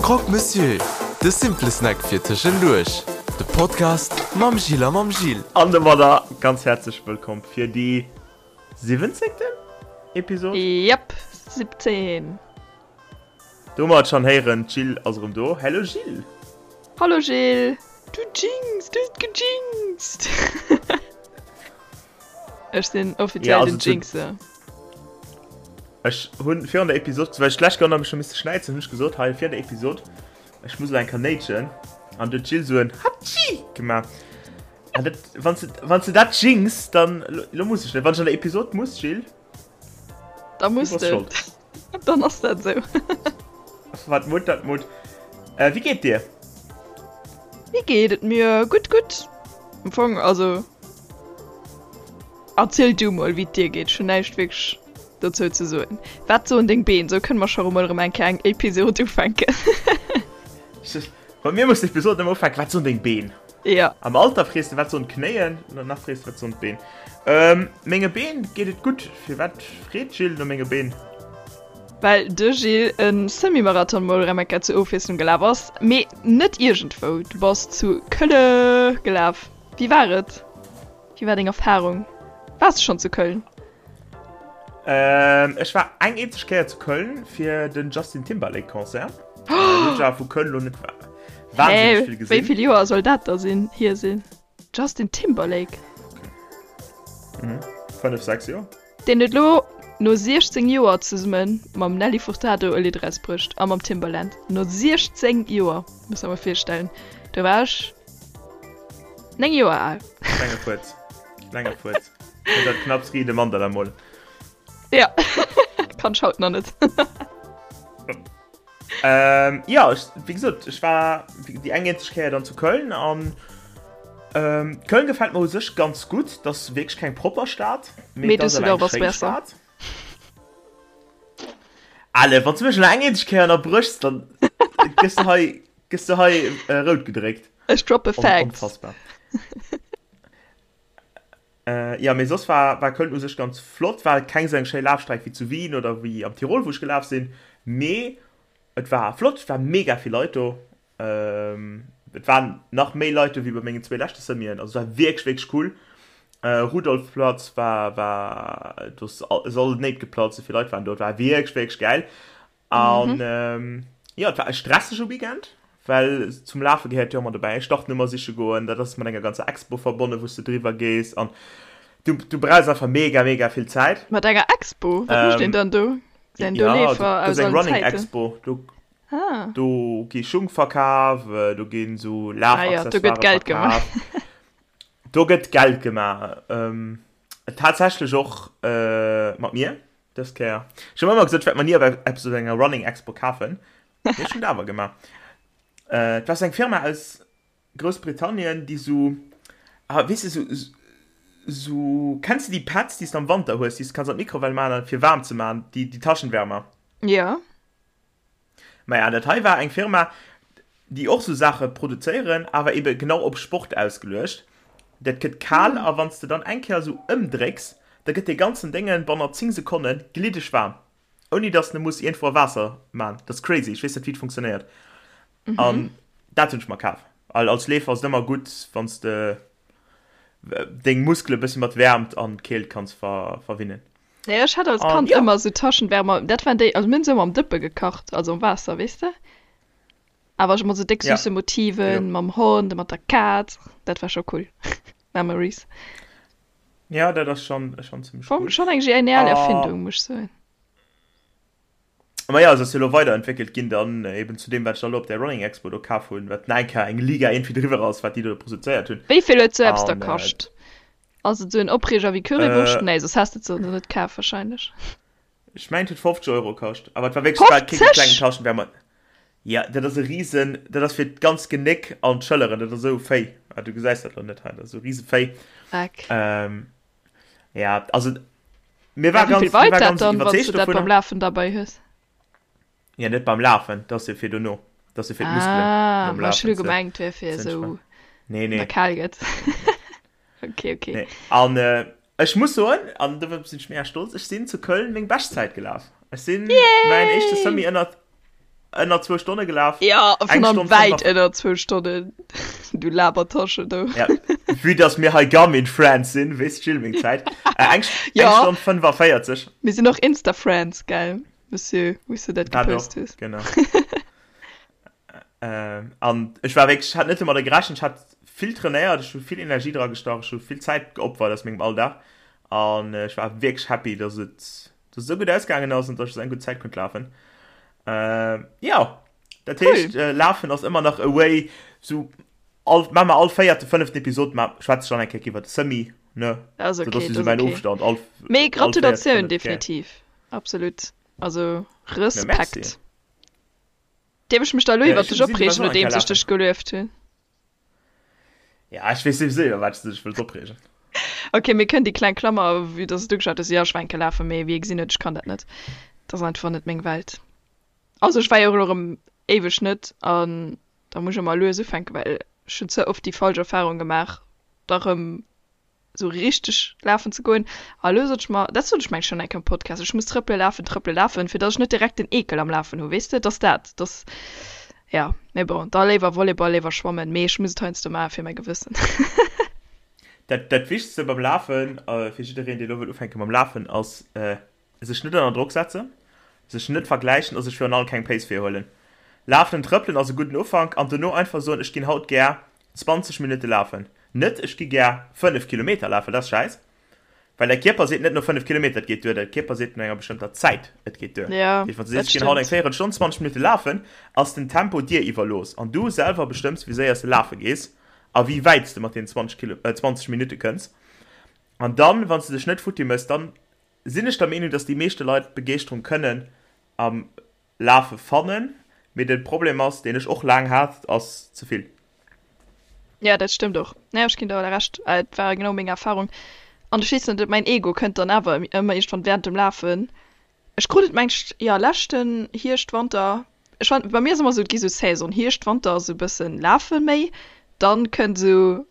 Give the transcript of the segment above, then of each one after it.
Croque Monsieur, de simple Snack fir tëschenduerch. De Podcast mam Gilles a mam Gilles. An domadder ganz häerzlech wëllkomm fir déi siwwenzéngten Episod. Yep, 17. Do mer et schon héieren, d'Jill ass erëm do. Hello Jill! Hallo Gilles! Du jinx, du hues gejinxt! Ech sinn offiziell Ja, den also zu- Jinxer. Ech hunn virun der Episod, well ech d'lescht Kéier mech scho misste schnäizen, hunn ech gesot, hei virun der Episod, ech muss elo eng Kéier néitschen. An du huet d'Jill esou en Hatschi gemaach. An dat, wann s de, wann s de dat jinx, dann, lo, lo muss ech net. Wann ech an der Episod muss, Jill, Da du muss bass de. schold. Dann ass dat esou. Wat Mut, dat Mut. Äh, wéi geet dir? Wéi geet et mir? Gutt, gutt. Am Fong, also. Erziel du mol, wéi et dir geet. Ech hunn näischt wierklech dozou ze soen. Wat soen deng Been? Sou kënne mer scho emol erëm eng Kéier eng Episod ufänken. Bei mir muss d'Episod ëmmer ufänken, Wat soen deng Been? Ja. Am Alter frees de, Wat soen d'Knéien? An nach frees de, Wat soen d'Been? Ähm, menge Been geet et gutt. Firwat freet d'Jill no menge Been? Well de Gilles e Semi-Marathon mol rem eng Kéier zur Ofwiesslung gelaf ass, mee net iergendwou, du bass zu Kölle gelaf. Wéi war et? Wéi war deng Erfarung? Waars de schonn zu Köln? Ähm, ech war eng eenzeg Kéier zu Köln fir den Justin Timberlake Concert. Äh, hunn ech awer vu Köln lo net wahnsinneg vill Hä, wéi gesinn. vill Joer soll dat da sinn, hier sinn? Justin Timberlake? Mhm. 5, 6 Joer. Deen huet lo no 16 Joer zesumme mam Nelly Furtado e Lidd erausbruecht a mam Timbaland. No 16 Joer, muss der mol virstellen. Do war ech 9 Joer al. Klenge Fuerz. Klenge Fuerz. Huet dat knapps Ride Mandala mol. Ja, kann ech haut nach net. Ähm, ja, ech, wéi gesot, ech war déi eng eenzeg Kéier dann zu Köln an ähm, Köln gefält mir u sech ganz gutt. Dat ass wierklech keng propper Stad, mee Mee et ass awer eng Düsseldorf ass schéi besser. Stad. Allez, wann s du mech elo eng eenzeg Kéier ënnerbréchs, dann gëss du hei, gëss du hei äh, rout gedréckt. Ech droppe On, Facts. onfassbar. Äh, ja, mee soss war, war Köln u sech ganz flott. War keng esou eng schéi Lafstreck wéi zu Wien oder wéi am Tirol, wou ech gelaf sinn, mee et war flott. Et war mega vill Leit do. Ähm, et waren nach méi Leit do wéi bei mengen zwee leschte Semien. Also et war wierklech, wierklech cool. Äh, Rudolfplatz war, war, do ass all d'Néit geplatzt, esou vill Leit waren do. Et war wierklech, wierklech gäil. An mhm. ja, et war e stressege Weekend, well zum Lafe gehéiert jo ëmmer dobäi Startnummer siche goen, dat ass mat enger ganzer Expo verbonnen, wou s du driwwer gees an du, du brauchs einfach mega, mega vill Zäit. Mat enger Expo? Wat mécht een dann do? Sinn do Ja, Leefer do aus gëtt eng allen Running Zäiten? Expo, do, Ah. do gi Schung verkaf, do ginn esou Ah ja, do gëtt Lafaccessoiren Geld gemaach. verkaf. Do gëtt Geld gemaach. Ähm, tatsächlech och äh, mat mir. Dës Kéier. Ech hunn ëmmer gesot, ech wäert mer ni eppes op enger Running Expo kafen. Mee ech hunn et awer gemaach. Äh, et war sou eng Firma aus Groussbritannien, déi sou, ah, weess de, sou, sou, kenns de déi Pads, déi s de am Wanter hues, déi s de kanns an d'Mikrowell maachen, fir waarm ze maachen, déi, déi Taschenwärmer? Jo. Maja, dat hei war eng Firma, déi och sou Saache produzéieren, awer ebe genau op Sport ausgeluecht. Dat gëtt kal a wann s de dann eng Kéier sou ëmdrécks, da gëtt dee ganzen Déngen bannert 10 Sekonne gliddeg waarm, ouni dass de muss iergendwou a Waasser man. Dat ass crazy, ech weess net wéi et funktionéiert. An dat hunn ech mer kaf, well als Leefer ass et ëmmer gutt, wann s de deng Muskele bëssi mat Wäermt an Keelt kanns verwinnen. Nee, ech hat als Kand ja. ëmmer sou Taschenwärmer, dat waren déi, also mir hunn se ëmmer am Dëppe gekacht, also am Waasser, weess de? Awer ech mat sou déck Ja. süsse Motiven, Jo. mam Hond, mat der Kaz, dat war scho cool. Memories. Ja, dat ass schon, schon zimmlech Schonn, cool. schonn eng genial Ah. Erfindung, muss ech soen. Ma ja, se ass jo elo weiderentwéckelt ginn dann eben zu deem, wat ech da elo op där Running Expo do kaf hunn, wat nach eng Kéier eng Liga iergendwéi driwwer ass, wat déi do produzéiert hunn. Wéi vill huet sou eppes da An, äh, kascht? Ass et sou en Opreeger wéi Currywurscht? Äh, Nee, soss häss de et se net kaf wahrscheinlech. Ech mengen et huet 50 Euro kascht, awer et war wierklech, et war kee 50? klengen Taschenwärmer. Ja, dat ass e riesen, dat ass fir d'ganz Genéck an d'Schëlleren, dat ass esou Véi. Ah, du gesäis dat lo net hei, dat ass esou riese Véi. Dreck. Ähm, ja, also mir Ja, war wéi ganz, vill mir weit war dat ganz dann, wann s iwwerzeegt du dat beim dovunner. Lafen derbei hues? Ja, net beim Lafen, dat ass jo fir dono, dat ass jo fir d'Muskelen Ah, nom ma ech hu Lafen ze, gemengt, wär fir ze esou, entspannen. Nee, wann der nee. kal gëtt. Okay, okay. Nee. An äh, ech muss soen, an dofir sinn ech mega stolz, ech sinn zu Köln meng Beschtzäit gelaf. Ech sinn mäin éischte Yay! Semi ënnert. Ënner zwou Stonne gelaf. Ja, vun allem wäit ënner zwou Stonnen. Du Labertasche, du. Ja, vue dass mir hei Garmin Friends sinn, weess d'Jill meng Zäit. Äh, eng, ja. eng Stonn 45. Mir sinn och Insta Friends, gell, Monsieur, wou s du dat gepost hues. Genau. äh, an ech war wierklech, ech hat net domadder gerechent, ech hat vill trainéiert, ech hu vill Energie dra gestach, ech hu vill Zäit geopfert aus mengem Alldag an ech war wierklech happy, dass et dass et esou gutt ausgaangen ass an dass ech esou eng gutt Zäit konnt lafen. Äh, ja, dat cool. heescht, äh, Lafen ass ëmmer nach a way, so all, ma mer all véierte, fënneften Episod ma schwätze ech dann eng Kéier iwwer de Semi, ne? Das okay, so, das ist so mein okay. Ofstand. All, Mee Gratulatioun, definitiv. Absolut. Also Respekt. Ja, Dierf ech mech da lo iwwer dech opreegen, nodeems ech dech gelueft hunn? Ja, ech weess souwisou iwwer wat s de dech wëlls opreegen. Ok, mir kënnen déi kleng Klammer, vue dass s du gesat hues, jo, ech war eng Kéier lafen, mee wéi ee gesinn huet, ech kann dat net. Dat ass einfach net meng Welt. Also ech war jo och elo erëm éiweg net an da muss ech ëmmer lues ufänken, well ech hunn ze oft déi falsch Erfarung gemaach, da rëm sou richteg lafen ze goen. A lo sot ech mer, dat sot ech mengen schonn eng Kéier am Podcast, ech muss trëppele lafen, trëppele lafen, fir datt ech net direkt den Eekel am Lafen hu, weess de, et ass dat, et ass, jo, mee bon, da léiwer Volleyball, léiwer schwammen, mee ech muss et heiansdo maache fir mäi Gewëssen. Dat, dat Wichtegste beim Lafen, fir jiddereen, dee lo wëll ufänke mam Lafen, ass, Sech net ënner Drock setzen, sech net vergläichen a sech virun allem keng Pace virhuelen. Lafen an trëppelen ass e gudden Ufank an dono einfach soen, ech ginn haut gär 20 Minutte lafen. Net ech gi gär 5 Kilometer lafen, dat ass schäiss, well däi Kierper seet net no 5 Kilometer et geet duer, däi Kierper seet no enger bestëmmter Zäit et geet duer. Ja, Dat heescht, wann s du dat sees ech ginn haut eng stëmmt. Véierelstonn, 20 Minutte lafen, ass den Tempo dir iwwerlooss an du selwer bestëmms wéi séier s de lafe gees a wéi wäit s de mat deenen 20 Kilo, 20 Minutte kënns. An dann, wann s de dech net futti méchs, dann sinn ech der Meenung, dass déi meeschte Leit d'Begeeschterung kënnen am Lafe fannen, mee de Problem ass, deen ech och laang hat, ass ze vill. Ja, dat stëmmt och. Nee, ech ginn der Recht. Et war genau meng Erfahrung. An ech weess net, mäin Ego kënnt dann awer ëmmer iergendwann während dem Lafen. Ech krut et mengt, jo, leschten Hierscht, Wanter, ech war, bei mir ass ëmmer esou, et gi sou Saison, Hierscht, Wanter ass esou e bëssen Lafe méi, dann kënnt esou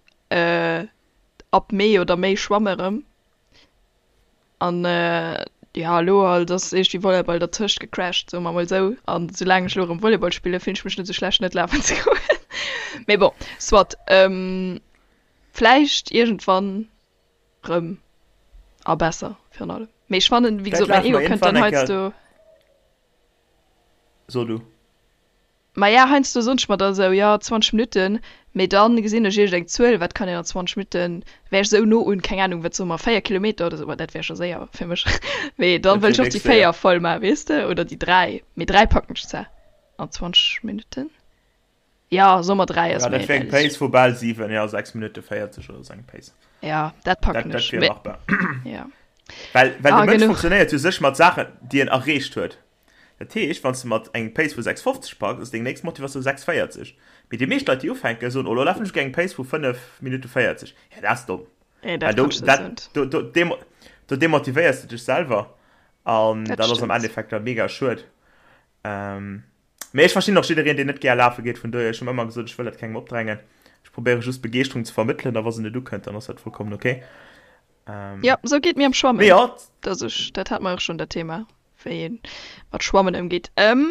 ab Mee oder méi Schwamme erëm. An jo, elo halt ass iergendwéi Volleyball dertëscht gecrashed, soe mer mol esou. An soulaang ech elo erëm Volleyball spillen, fillen ech mech net esou schlecht net lafen ze goen. Mee bon, soit. Vläicht iergendwann rëm a besser virun allem. Mee ech fannen, wéi Vläicht gesot, mäin lafe Ego mer kënnt dann iergendwann eng Kéier. heiansdo. So du. Maja, heiansdo soen ech mer da sou, jo, 20 Minutten, mee dann gesinn ech iergend eng Zuel, wat kann een an 20 Minutten, wär ech sou no un, keng Ahnung, wat soe mer, 4 Kilometer oder sou, ma dat wär scho séier fir mech, mee dann Dat wëll wier ech och déi wierklech séier. 4 voll maachen, weess de, oder déi 3, mee 3 packen ech zwar an 20 Minutten, jo, soe mer 3 ass Ja, méi dat wär eng realistesch. Pace vu bal 7, jo, 6 Minutte 40 oder sou eng Pace. Jo, dat Dat, packen dat ech, wier mee machbar. jo. Well, well de Ah, Mënsch genuch. funktionéiert jo sech mat Saachen, déi en erreecht huet. Dat heescht, wann s de mat engem Pace vu 6,50 packs, ass deng nächst Motivatioun 6,40. Mee déi meescht Leit, déi ufänken, soen, oh, lo lafen ech eng Pace vu 5 Minutte 40. Ja, dat ass domm. Nee, Well dat do, kannst du dat, net. do, do, demo, do demotivéiers de dech selwer. An Dat dat ass am stëmmt. Endeffekt da mega schued. Ähm, mee ech verstinn och jiddereen, deen net gär lafe geet. Vun dohier, ech hunn ëmmer gesot, ech wëll dat kengem opdrängen. Ech probéiere just Begeeschterung ze vermëttelen, a wa se net ukënnt, dann ass dat vollkommen okay. Ähm, Ja, sou geet mir am mee Schwammen. jo, Dass ech, dat hat mer och schonn dat Thema. wéi een mat Schwammen ëmgeet. Ehm,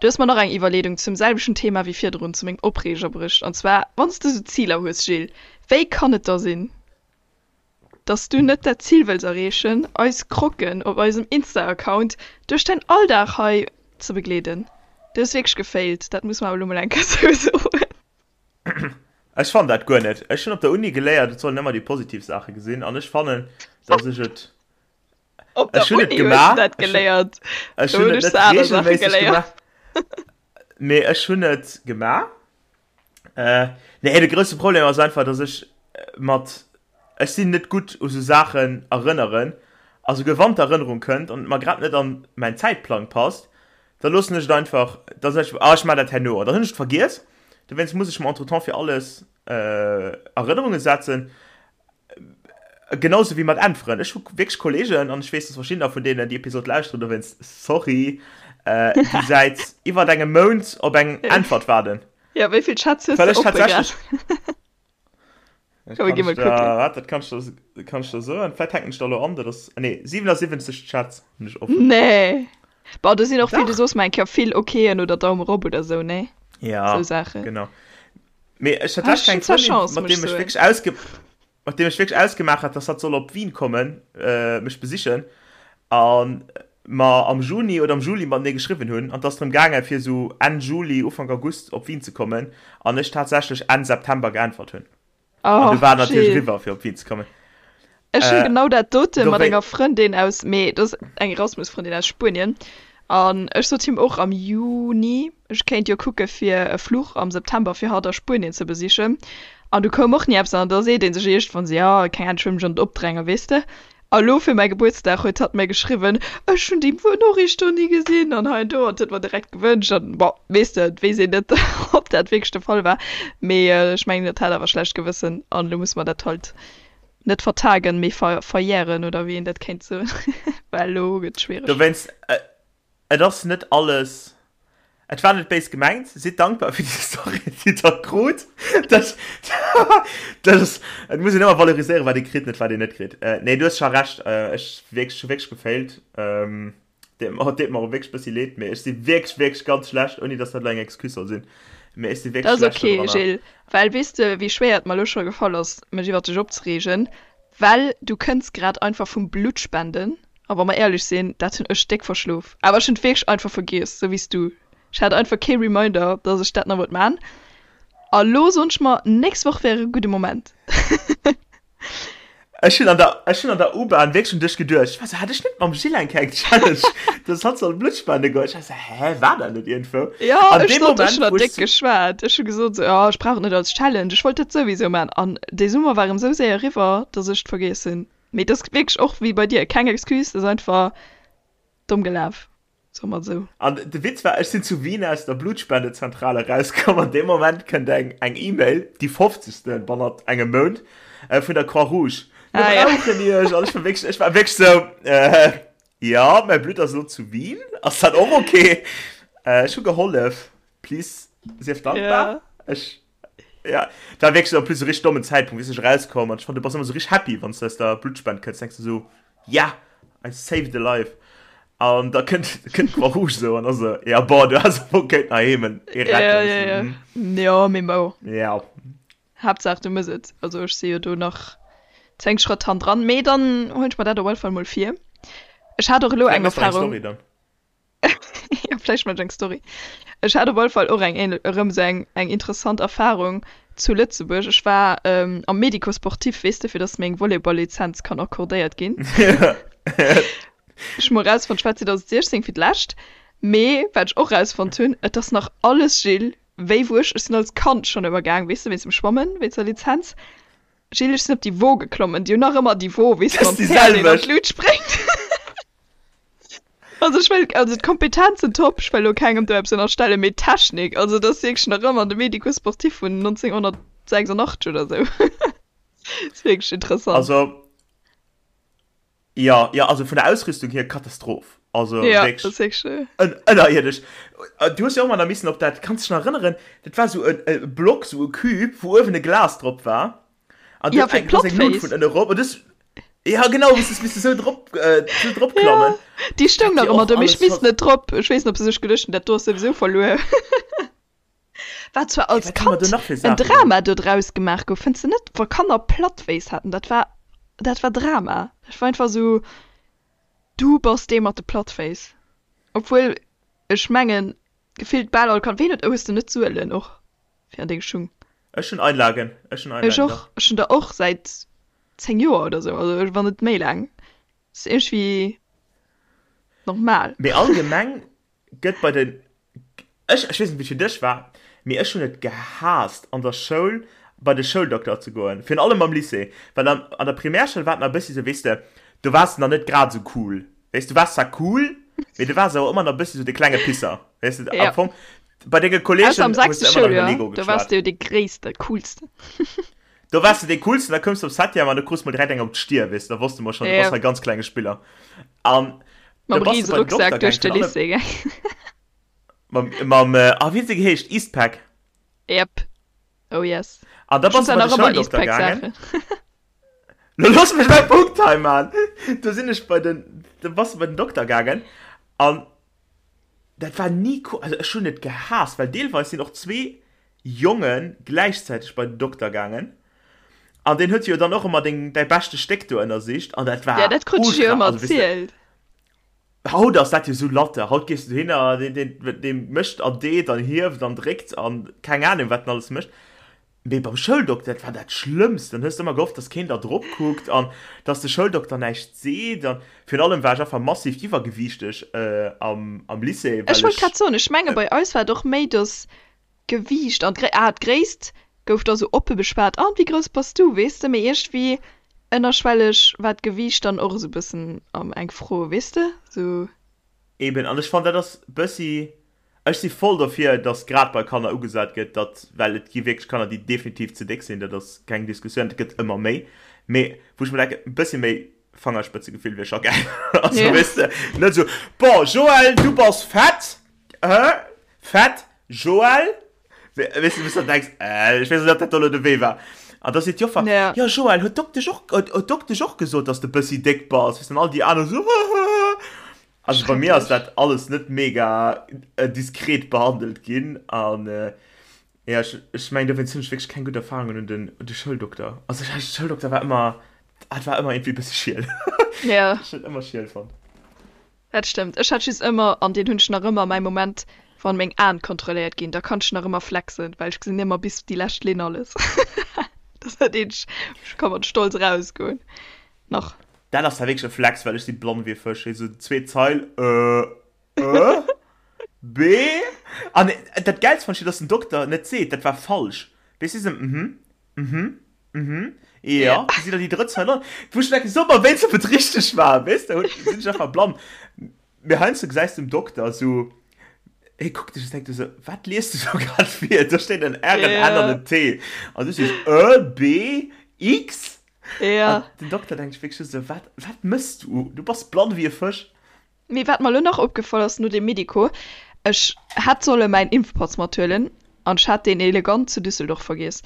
du hues mer nach eng Iwwerleedung zum selwechten Thema wéi virdrun, zu mengem Opreeger bruecht. An zwar, wann s de sou Ziler hues, Gilles, wéi kann et da sinn, dass du net dat Zil wëlls erreechen, eis Croquen op eisem Insta-Account duerch däin Alldag hei ze begleeden? Du hues wierklech gefailt, dat muss mer awer elo mol eng Kéier sou soen. Ech fannen dat guer net. Ech hunn op der Uni geléiert, et soll een ëmmer déi positiv Saache gesinn. An ech fannen, dass ech et Op der Ech hunn et Uni hues du gemaach. dat Ech hunn, geléiert. ech Do hunn hunn et ech net se aner Saache reegelméisseg geléiert. gemaach, mee ech hunn et gemaach. Äh, nee, de grousse Problem ass einfach, dass ech mat, ech sinn net gutt u sou Saachen erënneren. A souguer wann d'Erënnerung kënnt an et mer grad net an mäin Zäitplang passt, da loossen ech et einfach, da soen ech, ah, ech maachen dat herno. An dann hunn ech et vergiess. Dowéinst muss ech mer entretemps fir alles Erënnerunge setzen. Genau sou wéi mat Äntweren. Ech hu wierklech Kollegen, an ech weess, dass verschiddener vun deenen déi Episod lauschteren, dowéinst sorry, déi säit iwwert engem Mount op eng Äntwert waarden. Jo, wéi vill Chats hues Well de ech oppe grad? tatsächlech. Komm, mir gi mol kucken. Waart, dat kann ech der, kann ech der soen. Vläicht hänken ech der elo an, dat ass, nee, 77 Chats hunn ech offen. Nee! Bon, do sinn och vill, du soos mer eng Kéier, vill Okeen oder Daum erop oder sou, nee? Ja, Sou Saachen. genau. Mee ech hat lescht eng Frëndin, mat deem ech wierklech ausge mat deem ech wierklech ausgemaach hat, dass hatt soll op Wien kommen, mech besichen, a mer am Juni oder am Juli matenee geschriwwen hunn, an et ass drëm gaangen, fir esou Enn Juli, Ufank August op Wien ze kommen, an ech tatsächlech Enn September geäntwert hunn. An du war natierlech eriwwer, fir op Wien ze kommen. Ech hunn genau dat dote mat enger Frëndin aus, mee dat ass eng Erasmus-Frëndin aus Spuenien, an ech sot him och am Juni, ech kéint jo kucke fir e Fluch am September fir hatt a Spuenien ze besichen. An du koum och ni eppes an da seet ee sech iergendwann esou, jo, keng Ahnung, ech wëll mech och net opdrängen, weess de. A lo fir mäi Gebuertsdag huet hatt mir geschriwwen, ech hunn déi Noriicht do ni gesinn an hei an do an huet mer direkt gewënscht an bon, weess de, et weess een net, ob dat wierklech de Fall war, mee ech mengen, et hat awer schlecht Gewëssen an elo musse mer dat halt net vertagen, mee ver verjären oder wéi een dat kéint soen, well elo gëtt et schwiereg. Dowéinst, Et ass net alles, et war net béis gemengt. Sidd dankbar fir déi Story, déi der krut. Dat, dat ass, et muss een ëmmer valoriséieren, wat ee kritt, net wat een net kritt. Nee, du hues scho Recht, ech wierklech, hu wierklech gefailt. Deet mer, deet mer och wierklech bëssi leed, mee ech si wierklech, wierklech ganz schlecht, ouni dass dat elo eng Excuse soll sinn, mee ech si wierklech schlecht do dranner. Dat ass ok, Gilles, well weess de, wéi schwéier et mer elo scho gefall ass, mech iwwer dech opzereegen? Well du kënns grad einfach vum Bluttspenden. A wa mer éierlech sinn, dat hunn ech déck verschlof. Awer ech hunn et wierklech einfach vergiess, sou wéi s du. Ech hat einfach kee Reminder, dass ech dat nach wollt man. A lo soen ech mer, nächst Woch wär e gudde Moment. Ech hunn an der, ech hunn an der U-Bahn wierklech un dech geduecht. Ech war sou, hat ech net mam Gilles eng kleng Challenge, dass hatt soll Blutt spende goen? Ech war sou, hä, war dat net iergendwou? Jo, ech sot, ech hunn der déck geschwat. Ech hu gesot sou, jo, ech brauch et net als Challenge, ech wollt dat souwisou man. An dee Summer war erëm sou séier eriwwer, dass ech et vergiess hunn. Mee et ass wierklech och wéi bei dir, keng Excuse, et ass einfach domm gelaf, soe mer et esou. An de Witz war, ech sinn zu Wien aus der Blutspendezentrale erauskomm an deem Moment kënnt eng eng E-Mail, déi fofzegste bannert engem Mount, vun der Croix-Rouge, Mir Ah ja. brauchen iech! An ech war wierklech, ech war wierklech esou, äh, jo, mäi Blutt ass elo zu Wien, ass dat och ok? Ech hu gehollef, please sief dankbar. Ja. Ech. Ja, dat war wierklech en plus e richteg dommen Zäitpunkt, wéi ech erauskoum an ech fand, du bass ëmmer sou richteg happy, wann s du aus der Bluttspend kënns, denks du sou, yeah, I saved a life. An da kënnt, kënnt d'Croix Rouge sou an ass sou, ja bon, du häss awer och kéinten heiheem en ee Ja, retten. ja, ja. Mhm. Jo, mee bon. Ja. Haaptsaach du mëss et. Also ech si jo do nach 10 Schrëtt hanndran, mee dann huelen ech mer dat op alle Fall mol vir. Ech hat och elo Vläit eng mëss de eng Erfahrung. Story dann. Ja, vläicht mat eng Story. Ech hat op alle Fall och eng ähnl erëm esou eng eng interessant Erfahrung zu Lëtzebuerg. Ech war ähm, am Médico-sportif, weess de, fir dass meng Volleyball-Lizenz kann accordéiert ginn. Ech hu mol rausfonnt, ech war 2016 fir d'lescht, mee wat ech och rausfonnt hunn, et ass nach alles Gilles, wéi wou ech, ech sinn als Kand schonn ëmmer gaang, weess de, wéinst dem Schwammen, wéinst der Lizenz. Gilles, ech sinn op déi Wo geklommen, déi hunn nach ëmmer déi Wo, weess de, Das mam ist déi Päerd, deen an selwecht. d'Lut spréngt. Also ech wëll, also d'Kompetenzen top, ech wëll elo kengem do eppes ënnerstellen, mee d'Technik, also dat ass wierklech nach ëmmer de Médico-sportif vun 1986 oder esou. Ass wierklech interessant. Also, jo, jo, also vun der Ausrüstung hier Katastroph. Also Ja, wierklech dat ass wierklech. ën, ënnerierdesch. Du hues jo och ëmmer nach missen op dat, kanns dech nach erënneren, dat war esou e, e Block, esou e Cube, wou uewen e Glas drop war. An Ja, du fir eng, du eng Lut d'Plattféiss. vun ënne rop. An du ja genau, bis du bis du sou drop, äh, sou drop Ja, klammen. déi stoung Dat nach wier ëmmer och do, mee ech alles misst ver net drop. Ech weess net, ob se sech geduecht hunn, dat do ass souwisou verluer. Wat zwar Hey, als wat hu mer do Kand nach fir en Saachen gemaach? Drama do draus gemaach gouf, fënns de net? Wa Kanner Plattféiss haten, dat war, dat war Drama. Dat war einfach sou, du bass dee mat de Plattféiss. Obwuel, ech mengen, gefillt bal all Kand, ween huet, hues de net Suelen och fir an deng Schung? Ech hunn Einlagen, ech hunn Ech Einlagen, och, dach. ech hunn der och säit 10 Joer oder sou, also wann net méi laang. Ass iergendwéi normal. Mee allgemeng gëtt bei den, ech, ech weess net wéi et fir dech war, mee ech hunn et gehaasst an der Schoul bei de Schouldokter ze goen, virun allem am Lycée, well an, an der Primärschoul war et nach e bëssi sou, weess de, do waars de nach net grad sou cool, weess, du waars zwar cool, mee du waars awer ëmmer nach e bëssi sou de klenge Pisser, weess de, Ja. am Fong bei denge Ausser Kolleegen am hues sechste de ëmmer nach iwwer Schouljoer, Lego do waars geschwat. de jo dee gréisste, coolsten. Do waars de dee coolsten, da koums de op Septième an du krus mol direkt eng op d'Stier, weess de, da wosste mer schonn, du bass Ja. hei ganz klenge Spiller. An da Mam bass de riese bei den Dokter Rucksak duerch gaang, de virun allem Lycée gaang. mam, mam, ah, wéi huet se geheescht, Eastpak? Yep. Oh yes. An da Ech hunn bass de zwar bei de nach ëmmer Schouldokter gaangen. Eastpak-Saachen. Lo looss mech mäi Punkt hei man! Do sinn ech bei den, do bass de bei den Dokter gaangen an. Dat war ni cool, also ech hunn et gehaasst, well deelweis sinn och zwee Jonge gläichzäiteg bei den Dokter gaangen an deen huet jo dann och ëmmer deng, däi beschte Stéck do ënnersicht an dat war Ja, dat krut ech jo ultra, ëmmer also weess de, erzielt. haut ass dat jo sou latte, haut gees du dohinner, deen, deen, dee mécht an deet an hieft an dréckt an keng Ahnung wat en alles mécht. Mee beim Schouldokter, dat war dat Schlëmmst. Dann hues de ëmmer gehofft, dass keen da drop kuckt an dass de Schouldokter näischt seet. An virun allem war ech einfach massiv iwwergewiichteg am, am Lycée, Ech well wollt ech. grad soen, ech menge bei eis war et och méi, dass d'Gewiicht an d'Gré, ah, d'Gréisst gouf da sou oppe beschwat, ah, wéi grouss bass du, weess de, mee iergendwéi ënnerschwelleg war d'Gewiicht dann och esou e bëssen eng Fro, weess de, sou. Eben, an ech fannen, dat ass bëssi Ech si voll dofir, datt grad bei Kanner ugesat gëtt, datt, well et gi wierklech Kanner, déi definitiv ze déck sinn, dat ass keng Diskussioun, dat gëtt ëmmer méi, mee wou ech mer denken, e bëssi méi Fangerspëtzegefill wier scho gäil. Also, Ja. weess de, net esou, Bon, Joël, du bass fett, hä? Fett, Joël? Weess de, wou s de dann denks, Äh, ech weess net, ob dat do elo de Wee war. An da seet d'Joffer, Ja. Jo, Joël, huet d'Doktesch och, huet d'Doktesch och gesot, datt s de e bëssi déck bass? Weess de, an all déi aner esou, Hahaha. Also bei mir ass dat alles net mega diskret behandelt ginn an ja ech ech mengen dowéinst hunn ech wierklech keng gutt Erfahrungen un den un de Schouldokter. Also ech de Schouldokter war ëmmer hat war ëmmer iergendwéi e bësse schiel. Ja. Ech hunn ëmmer schiel fonnt. Dat stëmmt. Ech hat just ëmmer, an deen hunn ech nach ëmmer, mäi Moment wann meng Aen kontrolléiert ginn, da kann ech nach ëmmer flexen, well ech gesinn ëmmer bis déi lescht Linn alles. Dat ass dat eenzegt, ech ka mat Stolz erausgoen nach. Dat ass da wierklech e Flex, well ech si blann wéi e Fësch. Hei sou zweet Zeil, Ö, Ö, B. An dat Gäilst fand ech jo, dass den Dokter net seet, dat war falsch. Weess du, sou, mhm, mhm, mhm, jo, du si der déi drëtt Zeil an. Wou ech denken, so mer wéinst, ob et richteg war, weess de, sinn ech einfach blann. Mee heiansdo gesäis du dem Dokter sou, hie kuckt dech a denkt esou, wat liest du do grad vir? Do steet en R, en N an en T. An du sees Ö, B, X. Ja. An den Dokter denkt sech wierklech just esou, wat, wat mëss du? Du bass blann wéi e Fësch. Mee wat mer elo nach opgefall ass no deem Medico, ech hätt solle mäin Impfpass mathuelen an ech hat deen elegant zu Düsseldorf vergiess.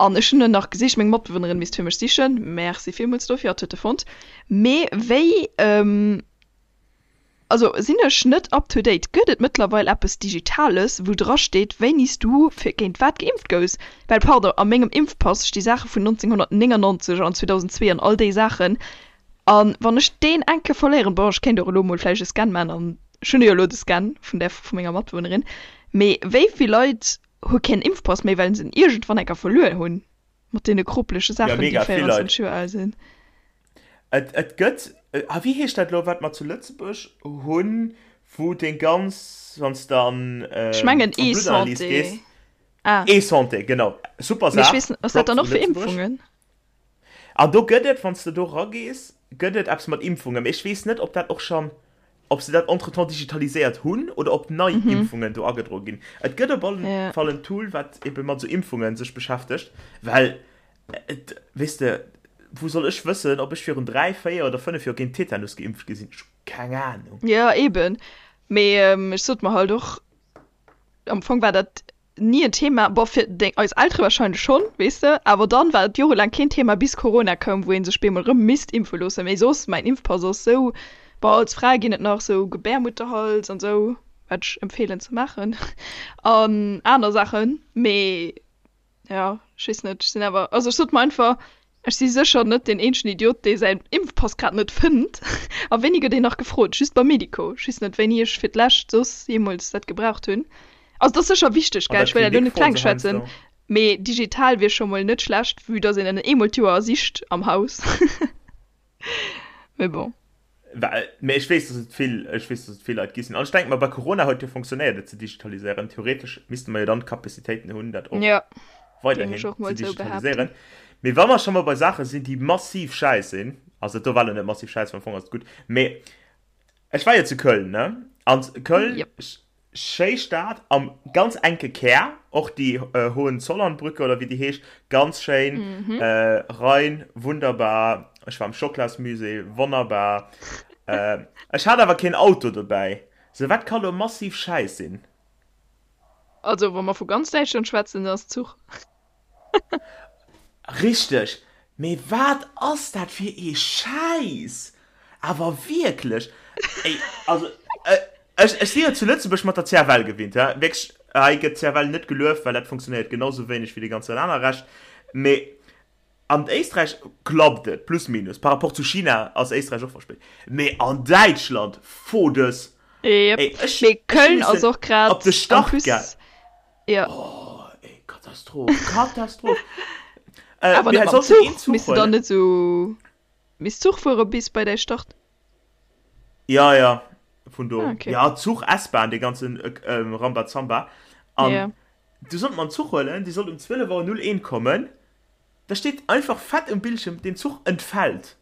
An ech hunn en nach gesicht, meng Matbewunnerin misst fir mech sichen, merci villmools dofir, hatt huet e fonnt. Mee wéi, also sinn ech net up to date, gëtt et mëttlerweil eppes Digitales, wou dra steet, wéini s du fir géint wat geimpft gouss? Well, pardon, a mengem Impfpass sti Saache vun 1999 an 2002 an all déi Saachen. A wann ech deen eng Kéier verléieren, bon, ech kéint och elo mol vläicht e Scan maachen an ech hunn jo elo de Scan vun där vu menger Matbewunnerin, mee wéi vill Leit hu keen Impfpass méi, well se en iergendwann eng Kéier verluer hunn, mat deene kropelege Ja, Saachen, déi mega vill Leit. 24 Joer al sinn. Et, et gëtt, ah, wéi heescht dat elo, wat mer zu Lëtzebuerg hunn, wou deng ganz, wann s de an, Ech mengen an d'Bluttanalyse eSanté. gees, Ah. eSanté, genau, super Mee ech Saach, weess net, ass dat Props dann u och fir Lëtzebuerg. Impfungen? An do gëtt et, wann s de do ragees, gëtt et eppes mat Impfungen. Mee ech weess net, ob dat och schonn, ob se dat entretemps digitaliséiert hunn oder ob nei Impfungen do agedroe ginn. Et gëtt op alle Fall en Tool, wat ebe mat esou Impfungen sech beschäftegt, well et, weess de, wou soll ech wëssen, ob ech virun 3, 4 oder 5 Joer géint Tetanus geimpft gi sinn? Ech hu keng Anung. Jo, eben. Mee ech sot mer halt och, am Fong war dat ni en Thema, bon fir deng, eis Eltere wahrscheinlech schonn, weess de, awer dann war et jorelaang keen Thema bis Corona koum, wou ee sech bemol erëm misst impfe loossen, mee soss, mäin Impfpass ass sou, bon als Fra ginn et nach sou Gebärmutterhals an sou, wat ech empfeelen ze maachen an aner Saachen, mee jo, ech weess net, ech sinn awer, also ech sot mer einfach, Ech si sécher net deen eenzegen Idiot, dee säin Impfpass grad net fënnt. A wéini gëtt een nach gefrot? Just beim Medico. Ech weess net, wéini ech fir d'lescht soss jeemools dat gebraucht hunn. Also, et ass sécher wichteg, An gell, der ech wëll dat elo Klinik net froen kleng se schwätzen, heiansdo. mee digital wier scho mol net schlecht, vue dass een en eemol d'Joer sicht am Haus. Mee bon. Well, mee ech weess, dass et vill, ech weess, dass et vill Leit gi sinn. An ech denke mer, bei Corona huet jo fonctionnéiert, et ze digitaliséieren. Theoretesch misste mer jo dann d'Capacitéiten hunn, dat och Ja, géing weiderhin ech och ze mol sou digitaliséieren. behaapten. Mee wa mer scho mol bei Saache sinn, déi massiv schäiss sinn, also dat do war lo net massiv schäiss, well am Fong ass et gutt, mee ech war jo zu Köln, ne? An Köln, Jep. Schéi Stad am ganz enke Kär, och déi Hohenzollernbrücke oder wéi déi heescht, ganz schéin, Rhein, wunderbar. Ech war am Schocklasmusée, wonnerbar. Ech hat awer keen Auto dobäi, sou wat ka lo massiv schäiss sinn? Also wa mer vu ganz Däitschland schwätzen, dann ass Zuch. Richteg, mee wat ass dat fir ee Schäiss? Awer wierklech, ey, also. Ech, ech si jo zu Lëtzebuerg mat der CFL gewinnt, hä? Wierklech, hei gëtt d'CFL net gelueft, well dat funktionéiert genau sou wéineg wéi dee ganzen aner Rescht. Mee an Éisträich klappt et, plus minus. Par rapport zu China ass Éisträich och verspéit. Mee an Däitschland, fodes! Yep. Ey, ech, Mee ech Köln ass missen och grad op de en Start plus, ga. jo. Oh, ey, Katastroph, Katastroph! Äh, Awer mir net mam sollten een Zuch, Zuch misst de dann huelen. net sou, misst Zuch fuere bis bei däi Start? Ja, ja, vun do. Ah, okay. Ja, Zuch, S-Bahn, dee ganzen Rambazamba. An Ja. du sollt mer en Zuch huelen, dee sollt um 12 Auer 01 kommen. Da steet einfach fett um Bildschirm, den Zuch entfällt.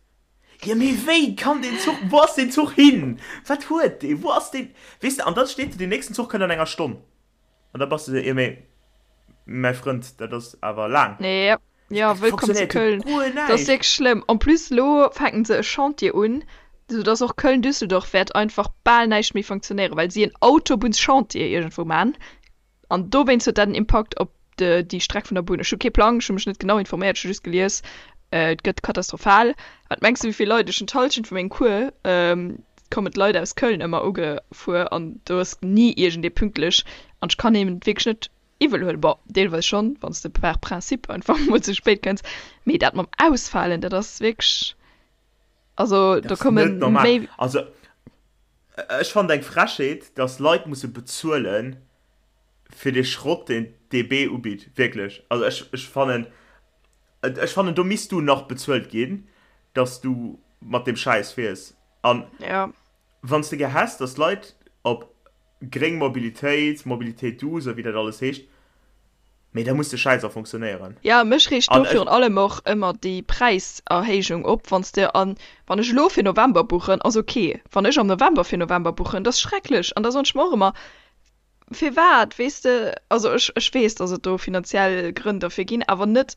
Jo, mee wéi kann deen Zuch, wou ass deen Zuch hin? Wat huet dee? Wou ass deen? Weess de, an da steet do, deen nächsten Zuch kënnt an enger Stonn. An da bass de sou, jo mee mäi Frënd, dat ass awer laang. Ja, ja, Dat wëllkomm zu funktionéiert jo Köln. guer Dat ass näischt. wierklech schlëmm. En plus elo fänken se e Chantier un, sou dass och Köln-Düsseldorf wäert einfach bal näischt méi funktionéieren, well si en Autobunnschantier iergendwou man. An dowéinst huet dat en Impakt op déi Streck vun der Bunn. Ech hu kee Plang, ech hu mech net genau informéiert, ech hu just gelies, et gëtt katastrophal. Wat mengs de wéi vill Leit, ech hunn d'Hallschent vu mengem Cours, kommen d'Leit aus Köln ëmmer ugefuer an do ass ni iergendee pünktlech an ech kann hinnen et wierklech net iwwel huelen. Bon, deelweis schonn, wann s de par principe einfach mol ze spéit kënns, mee dat mam Ausfalen, dat ass wierklech, also Dat do ass komme net normal. méi. Also ech fannen et eng Frechheet, dass Leit musse bezuelen fir dee Schrott, deen d'DB ubitt. Wierklech. Also ech, ech fannen, ech fannen do misst du nach bezuelt ginn, dass du mat deem Schäiss fiers. An Ja. wann s de gär häss, dass d'Leit op gréng Mobilitéit, Mobilité douce a wéi dat alles heescht, mee da muss de Schäiss och funktionéieren. Ja, mech reegt do An ech. virun allem och ëmmer déi Präiserhéijung op, wann s de an, wann ech elo fir November buchen, ass ok, wann ech am November fir November buchen, dat ass schrecklech. An da soen ech mer och ëmmer, firwat, weess de, also ech, ech weess, dass et do finanziell Grënn derfir ginn, awer net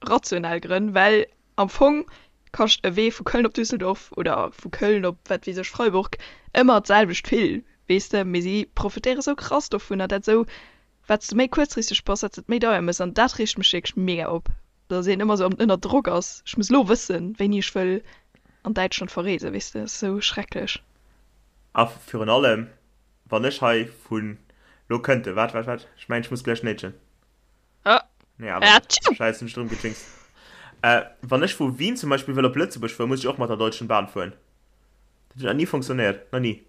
rationell Grënn, well am Fong kascht e Wee vu Köln op Düsseldorf oder vu Köln op wat weess ech Freiburg ëmmer d'selwecht vill, weess de, mee si profitéiere sou krass dovunner, dat sou wat s de méi kuerzfristeg bass, wat s de et méi deier méchs an dat reegt mech wierklech mega op, dass een ëmmer sou ënner Drock ass, ech muss elo wëssen, wéini ech wëll an Däitschland verreesen, weess de, ass sou schrecklech. A virun allem, wann ech hei vun, lo kënnt e, waart, waart, waart, ech mengen, ech muss gläich néitschen. Ah. Nee, awer net. Scheiße, mech drëm gejinxt. Äh, wann ech vu Wien zum Beispill wëll op Lëtzebuerg fueren, muss ech och mat der Deutschen Bahn fueren. Dat huet nach ni funktionéiert. Nach ni.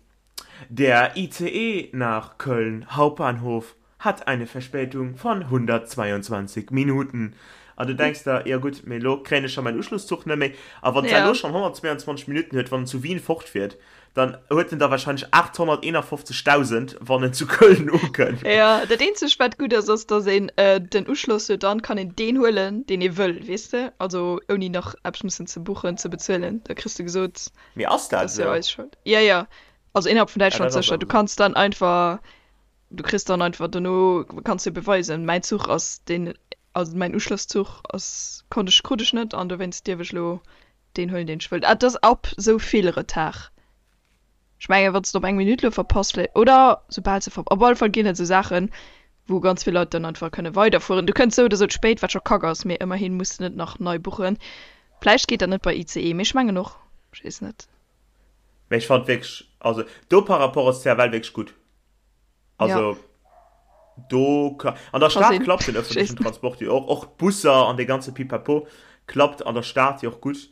Der ICE nach Köln Hauptbahnhof hat eine Verspätung von 122 Minuten. An du denks der, jo gutt, mee elo kréien ech scho mäin Uschlusszuch net méi. A wann d'Zell Ja. elo schonn 122 Minutten huet, wann en zu Wien fortfiert, Dann huet en der wahrscheinlech 851.000, wann en zu Köln ukënnt. Jo, dat eenzegt wat gutt ass, ass dass een den Uschloss huet, dann kann een deen huelen deen ee wëll, weess de, also ouni nach eppes mussen ze buchen, ze bezuelen, da kriss de gesot, Mee ass dat dat ass jo esou? eis Schold. Jo, jo, also innerhalb vun Ah, Däitschland dat ass sécher, du awer esou. kanns dann einfach, du kriss dann einfach dono, kanns du beweisen, mäin Zuch ass deen, also mäin Uschlosszuch ass, konnt ech, krut ech net an dowéinst dierf ech elo Deen huelen deen ech wëllt. Ah, et ass ab sou vill Retard. Ech mengen wann s de op eng Minutt lo verpasst vläicht, oder soubal se ver, op alle Fall ginn et sou Saachen wou ganz vill Leit dann einfach kënne weiderfueren. Du kënns sou oder sou ze spéit, wat scho kack ass, mee ëmmerhin muss de net nach nei buchen. Vläicht geet dat net bei ICE, mee ech mengen och, ech weess net. Mee ech fand wierklech, also do par rapport ass CFL wierklech gutt. Also do ka, an der Ka Stad sinn. klappt den öffentlichen Transport jo och, och d'Busser an dee ganze Pipapo klappt an der Stad jo och gutt,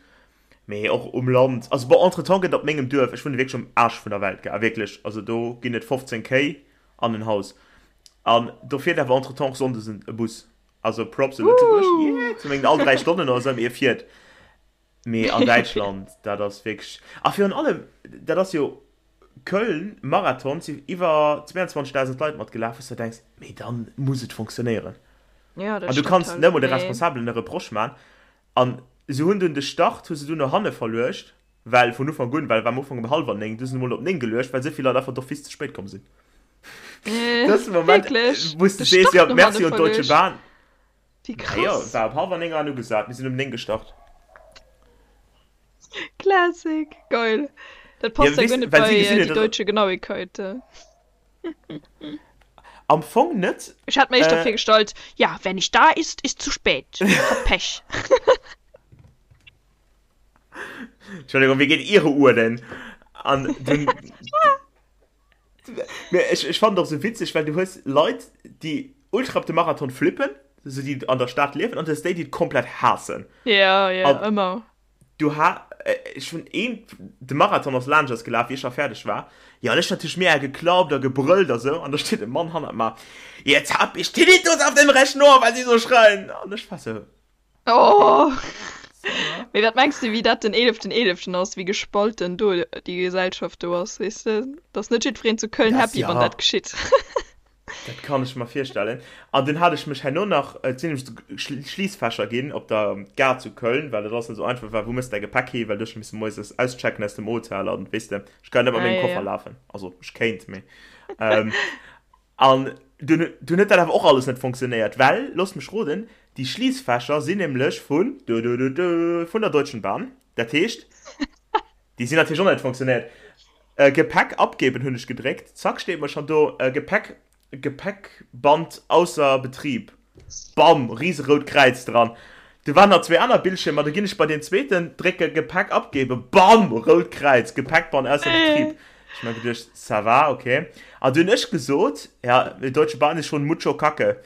mee och um Land, also bon, entretemps gëtt op mengem Duerf, ech wunne wierklech um Aarsch vun der Welt, gell, wierklech, also do ginn et 15 Kéi an en Haus an do fiert awer entretemps och sonndes en e Bus, also Props u Lëtzebuerg, yeah, zu mengen all 3 Stonnen oder esou, mee e fiert. Mee an Däitschland, dat ass wierklech, a virun allem, dat ass jo Köln Marathon, si iwwer 22.000 Leit matgelaf, wou s de denks, mee da muss et fonctionnéieren. Ja, dat An du stimmt kanns halt, net emol de mee. Responsabelen e Reproche man. An se hunn dunn de Start hu se dunn no hanne verluecht, well vun Ufank un, well war am Ufank um hallwer 9, du se emol op 9 geluecht, well esou vill Leit einfach d'office ze spéit komm sinn. Dëse Moment, Wierklech? wou s de De sees, Start jo, no hanne merci un d'Deutsche verluecht? Bahn. Wéi Naja, krass. war op hallwer 9 an ugesat, mir sinn um 9 gestart. Classic, geil. Dat Ja, passt ja weess, guer net well si bei gesinn äh, huet, die dass deutsche Genauigkeit. Äh. am Fong net. Ech hat mir éischter Äh, virgestallt, ja, wer nicht da ist, ist zu spät. Hat Pech. Entschuldigung, wéi geet Ihre Uhr denn? An dunn. Mee ech, ech fannen et och sou witzeg, well du hues Leit, déi ultra op de Marathon flippen, sou déi an der Stad liewen, an du hues déi, déi et komplett haassen. Ja, ja, An ëmmer. du ha, ech hunn een, de Marathon ass laanscht eis gelaf, wéi ech scho fäerdeg war. Jo, an ech natierlech mega geklappt a gebrëllt a sou, an da steet e Mann hannert mer, Jetzt hab ich Tinnitus auf dem rechten Ohr, weil Sie so schreien! An ech war sou. Oh. Mee wat mengs de wéi dat den eeleften eeleften ass, wéi gespalten do déi Gesellschaft do ass, weess de? Et ass net jiddwereen zu Köln Das, happy, wann ja. dat geschitt. Dat kann ech mer virstellen. An dunn hat ech mech herno nach, et sinn nämlech esou Schliissfächer ginn op der Gare zu Köln, well et alles net esou einfach war, wou mëss däi Gepäck hi, well du hues scho misse moies auschecken aus dem Hotel an weess de, ech kann net mat Ah, mengem ja, Koffer ja. lafen. Also ech kéint, mee. An dunn dunn huet dat awer och alles net funktionéiert, well, loosst mech roden, déi Schliissfächer sinn nämlech vun, dudududu, vun der Deutschen Bahn. Dat heescht, déi sinn natierlech och net funktionéiert. Gepäck abgeben hunn ech gedréckt, zack steet mer schonn do, Gepäck, Gepäckband ausser Betrieb. Bam, riserout Kräiz dran. Du waren nach zwee aner Bildschiermer, du ginn ech bei deen zweeten, drécke Gepäck abgeben, bam, rout Kräiz, Gepäckband ausser Betrieb. Ech mir geduecht, ça va, ok. An du hunn ech gesot, ja, die Deutsche Bahn ist schon mucho Kacke.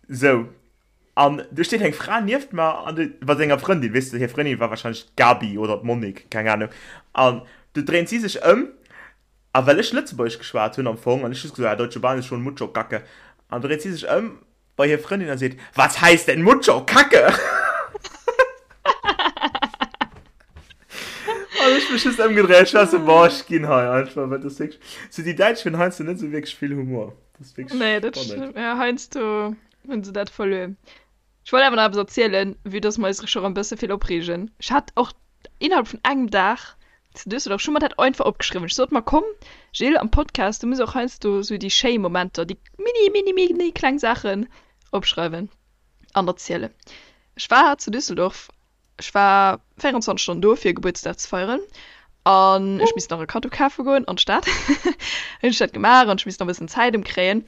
Sou. An du steet eng Fra nieft mer an du, mat senger Frëndin, weess de, hir Frëndin war wahrscheinlech d'Gabi oder d'Monique, keng Ahnung. An du dréint si sech ëm A well ech Lëtzebuergesch geschwat hunn am Fong, an ech just gesot, ah, Deutsche Bahn ist schon mucho Kacke. An dréit si sech ëm bei hir Frëndin a seet, Was heißt denn mucho Kacke? An ech mech just ëmgedréit, ech war sou, boah, ech ginn hei einfach, well dat ass wierklech, sou déi Däitsch hunn heiansdo net sou wierklech vill Humor. Dat ass wierklech Nee, dat spannend. stëmmt. Ja, heiansdo hunn se dat verluer. Ech wollt awer nach eppes erzielen, vue dass mer eis scho rem bësse vill opreegen. Ech hat och innerhalb vun engem Dag zu Düsseldorf, ech hu mer dat einfach opgeschriwwen. Ech sot mer, komm Jill, am Podcast, du muss och heiansdo sou déi schéi Momenter, déi mini, mini, mini kleng Saachen opschreiwen an erzielen. Ech war zu Düsseldorf Ech war 24 Stonnen do fir Gebuertsdag ze feieren an ech misst nach e Kaddo kafe goen an d'Stad. Hunn ech dat gemaach an ech misst nach e bëssen Zäit ëmkréien.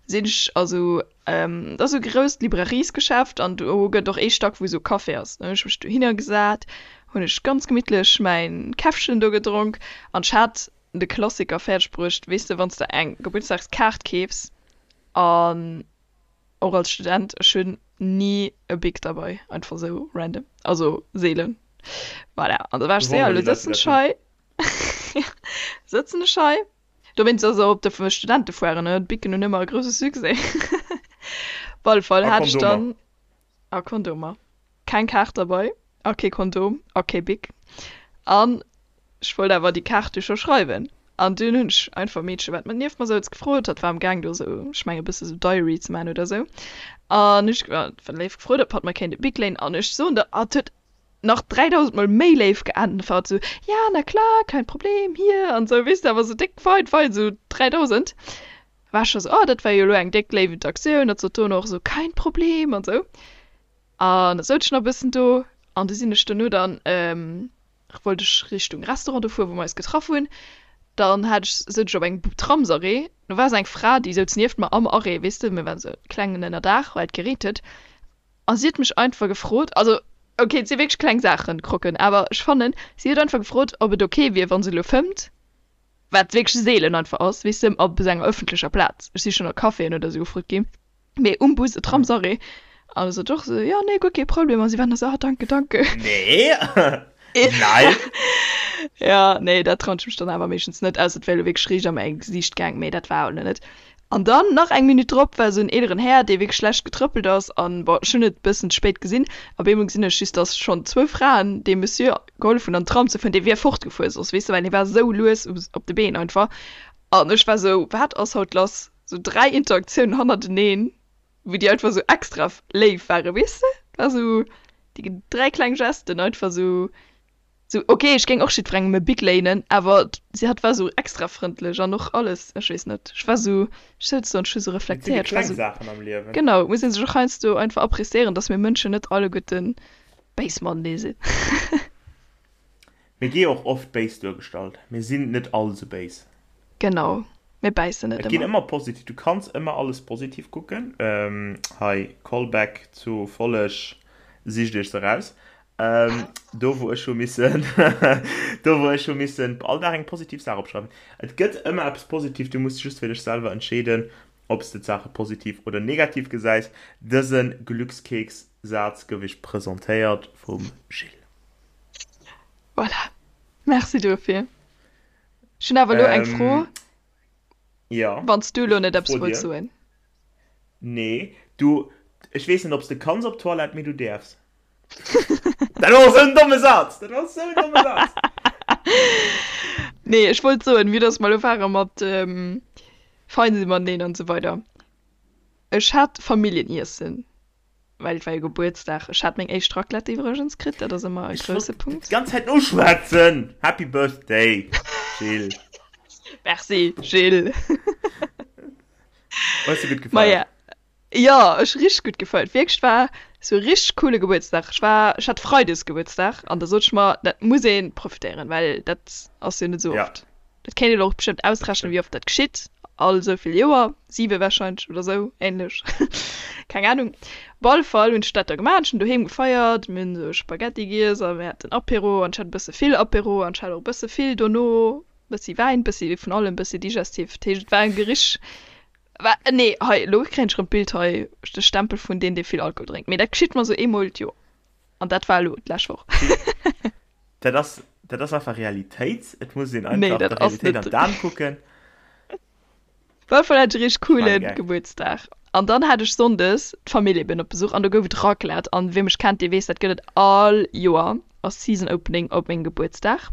Sinn ech also, dat ass esou e grousst Librariesgeschäft an do gëtt och ee Stack wou esou Café ass. Dann hunn ech mech dohinner gesat, hunn ech ganz gemittlech mäin Käffchen do gedronk an ech hat de Klassiker fäerdeg bruecht, weess de wann s de eng Gebuertsdagskaart keefs an Och als Student, ech hunn ni e Bic derbei, einfach sou random, also seelen. Voilà, an da war ech sou, ja, elo sëtzen ech hei, sëtzen ech hei. Dowéinst ass och op de Studentefoiren, ne, d'Bicen hunn ëmmer e grousse Succès. Op alle Fall hat ech dann. A Kondomer. Keng Kaart derbei a kee Kondom a kee Bic. An ech wollt awer déi Kaart du scho schreiwen. An dunn hunn ech einfach e Meedche wat mat nieft mer souz gefrot. Hatt war am Gaang do sou, ech mengen e bësse sou Diary ze maachen oder sou. An ech war léif gefrot ob hatt mer kéint e Bic léinen. An ech soen der, hatt huet nach 3000 mol méi léif geäntwert, sou, ja na klar, kein Problem, hier an sou, weess de, awer sou déck weit weit, sou 3000. War ech scho sou, oh dat war jo elo eng déck léif Interaktioun, hatt sot dono och sou, kein Problem an sou. An da souz ech nach e bëssen do an du sinn ech dono dann, wollt ech Richtung Restaurant do fueren, wou mer eis getraff hunn. Dann hat ech, souz ech op engem Tramsarrêt, do war sou eng Fra, déi souz nieft mer am Arrêt, weess de, mir waren sou klengen Ënnerdaach, well et gereent huet. A si huet mech einfach gefrot, also ok, et si wierklech kleng Saachen, Krocken, awer ech fannen, si huet einfach gefrot, ob et ok wier, wa se elo fëmmt, wat wierklech seelen einfach ass, weess de, op esou enger ëffentlecher Plaz. Ech si schonn a Caféen oder esou gefrot ginn, mee um Bus, e Tramsarrêt. An da sot ech och esou, jo, nee, guer kee Problem. A si waren da esou, ah, danke, danke. Nee, nein. Ja, nee, dat trauen ech mech dann awer meeschtens net, ausser et wär elo wierklech riicht a mäi Gesiicht gaang, mee dat war elo net. An dann nach eng Minutt drop war esou en eeleren Här, dee wierklech schlecht getrëppelt ass an, bon, ech hunn et bëssen ze spéit gesinn, op eemol gesinn ech just, dass schonn zwou Fraen deem Monsieur gehollef hunn an den Tram ze fueren, dee wier fortgefuer soss, weess de, well hie war esou lues op de Been einfach. An ech war esou, wat ass haut lass? Esou 3 Interaktiounen hannerteneen, wou déi einfach esou extra léif waren, weess de? War esou déi 3 kleng Gesten einfach esou. Sou, ok, ech géing och jiddwerengem e Bic léinen, awer si hatt war sou extra frëndlech an och alles, ech weess net, ech war sou, ech souz do an ech hu sou Et sinn déi reflektéiert, ech war kleng sou, Saachen am Liewen. genau, et muss ee sech och heiansdo einfach appréciéieren, dass mir Mënschen net alleguerten béis matenee sinn. Mir gi och oft béis duergestallt. Mir sinn net all sou béis. Genau, mir bäissen net Et ginn ëmmer. ëmmer positiv, du kanns ëmmer alles positiv kucken. Hei, Callback zu Folleg, sicht iech se raus. Ähm, do wou ech hu missen do wou ech hu missen all Dag eng positiv Saach opschreiwen. Et gëtt ëmmer eppes positiv, du muss just fir dech selwer entscheeden, ob s de d'Saache positiv oder negativ gesäis. Dëse Glückskeks-Saz gouf iech presentéiert vum Gilles. Voilà, merci dofir. Ech hunn awer elo eng Fro, Ja, wann s du elo net eppes fro wolls dir. soen. Nee, du, ech weess net, ob s de kanns op d'Toilette, mee du däerfs. Dat war esou en domme Saz! Dat war esou en domme Saz! Nee, ech wollt soen, vue dass mer elo ware mat fein si mateneen an esou weider. Ech hat Familljeniesse, well et war jo Gebuertsdag. Ech hat meng éischt Raclette iwwregens kritt, dat ass ëmmer e Ech grousse wollt Punkt. d'ganz Zäit noschwätzen! Happy Birthday, Jill! Merci, Jill! Hues de gutt gefeiert? Maja, Jo, ech richteg gutt gefeiert. Wierklech, war sou e richteg coole Gebuertsdag. Ech war, ech hat Freides Gebuertsdag an da sot ech mer, dat muss ee profitéieren, well dat ass jo net sou Ja. oft. Dat kéint een och bestëmmt ausrechnen, wéi oft dat geschitt, all sou vill Joer, siwe warscheinlech oder sou ähnlech, keng Ahnung. Op alle Fall hunn ech dat da gemaach, ech hunn doheem gefeiert, mir hunn sou Spaghetti giess a mir haten Apéro an ech hat e bësse vill Apéro an ech hat och e bësse vill dono, bëssi Wäin, bëssi vun allem, bëssi Digestif. Dat heescht, et war e richteg Wa, nee, hei, elo kréien ech erëm d'Bild hei, de Stempel vun deen, dee vill Alkohol drénkt. Mee dat geschitt mer esou eemol d'Joer. An dat war elo d'lescht Woch. Dat ass, dat ass einfach Realitéit. Et muss een Nee, einfach dat der ass Realitéit an net. d'Aen kucken. Op alle Fall hat ech e richteg Ech maache coolen Gag. Gebuertsdag. An dann hat ech sonndes d'Famill eben op Besuch an do gouf et Raclette. An wie mech kennt, dee weess, dat gëtt et all Joer als Season Opening op mengem Gebuertsdag.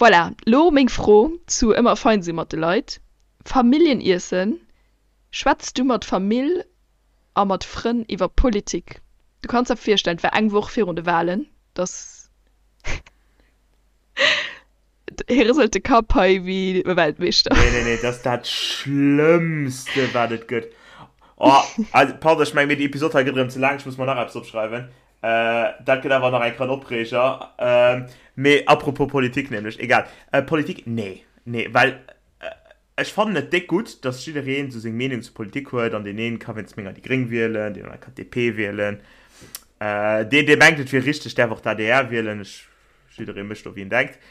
Voilà, lo meng Fro zu ëmmer fein si mat de Leit. Familljeniessen, Schwätz du mat Famill a mat Frënn iwwer Politik? Du kanns der virstellen, et war eng Woch virun de Wahlen, dass hie rëselt de Kapp hei wéi e Weltmeeschter. Nee, nee, nee, dat ass dat Schlëmmste, wat et gëtt. Oh, also, pardon, ech mengen, mee déi Episod hei gëtt erëm ze laang, ech muss mer nach eppes opschreiwen. Dat gëtt awer nach eng Kéier en Opreeger. Mee apropos Politik nämlech, egal. Politik, nee, nee, well Ech fannen et déck gutt, dass jiddereen sou seng Meenung zur Politik huet an deen een ka wéinst menger déi Gréng wielen, deen anere kann d'DP wielen, deen dee mengt et wier richteg däerf och d'ADR wielen, ech, jidderee mécht do wéi en denkt.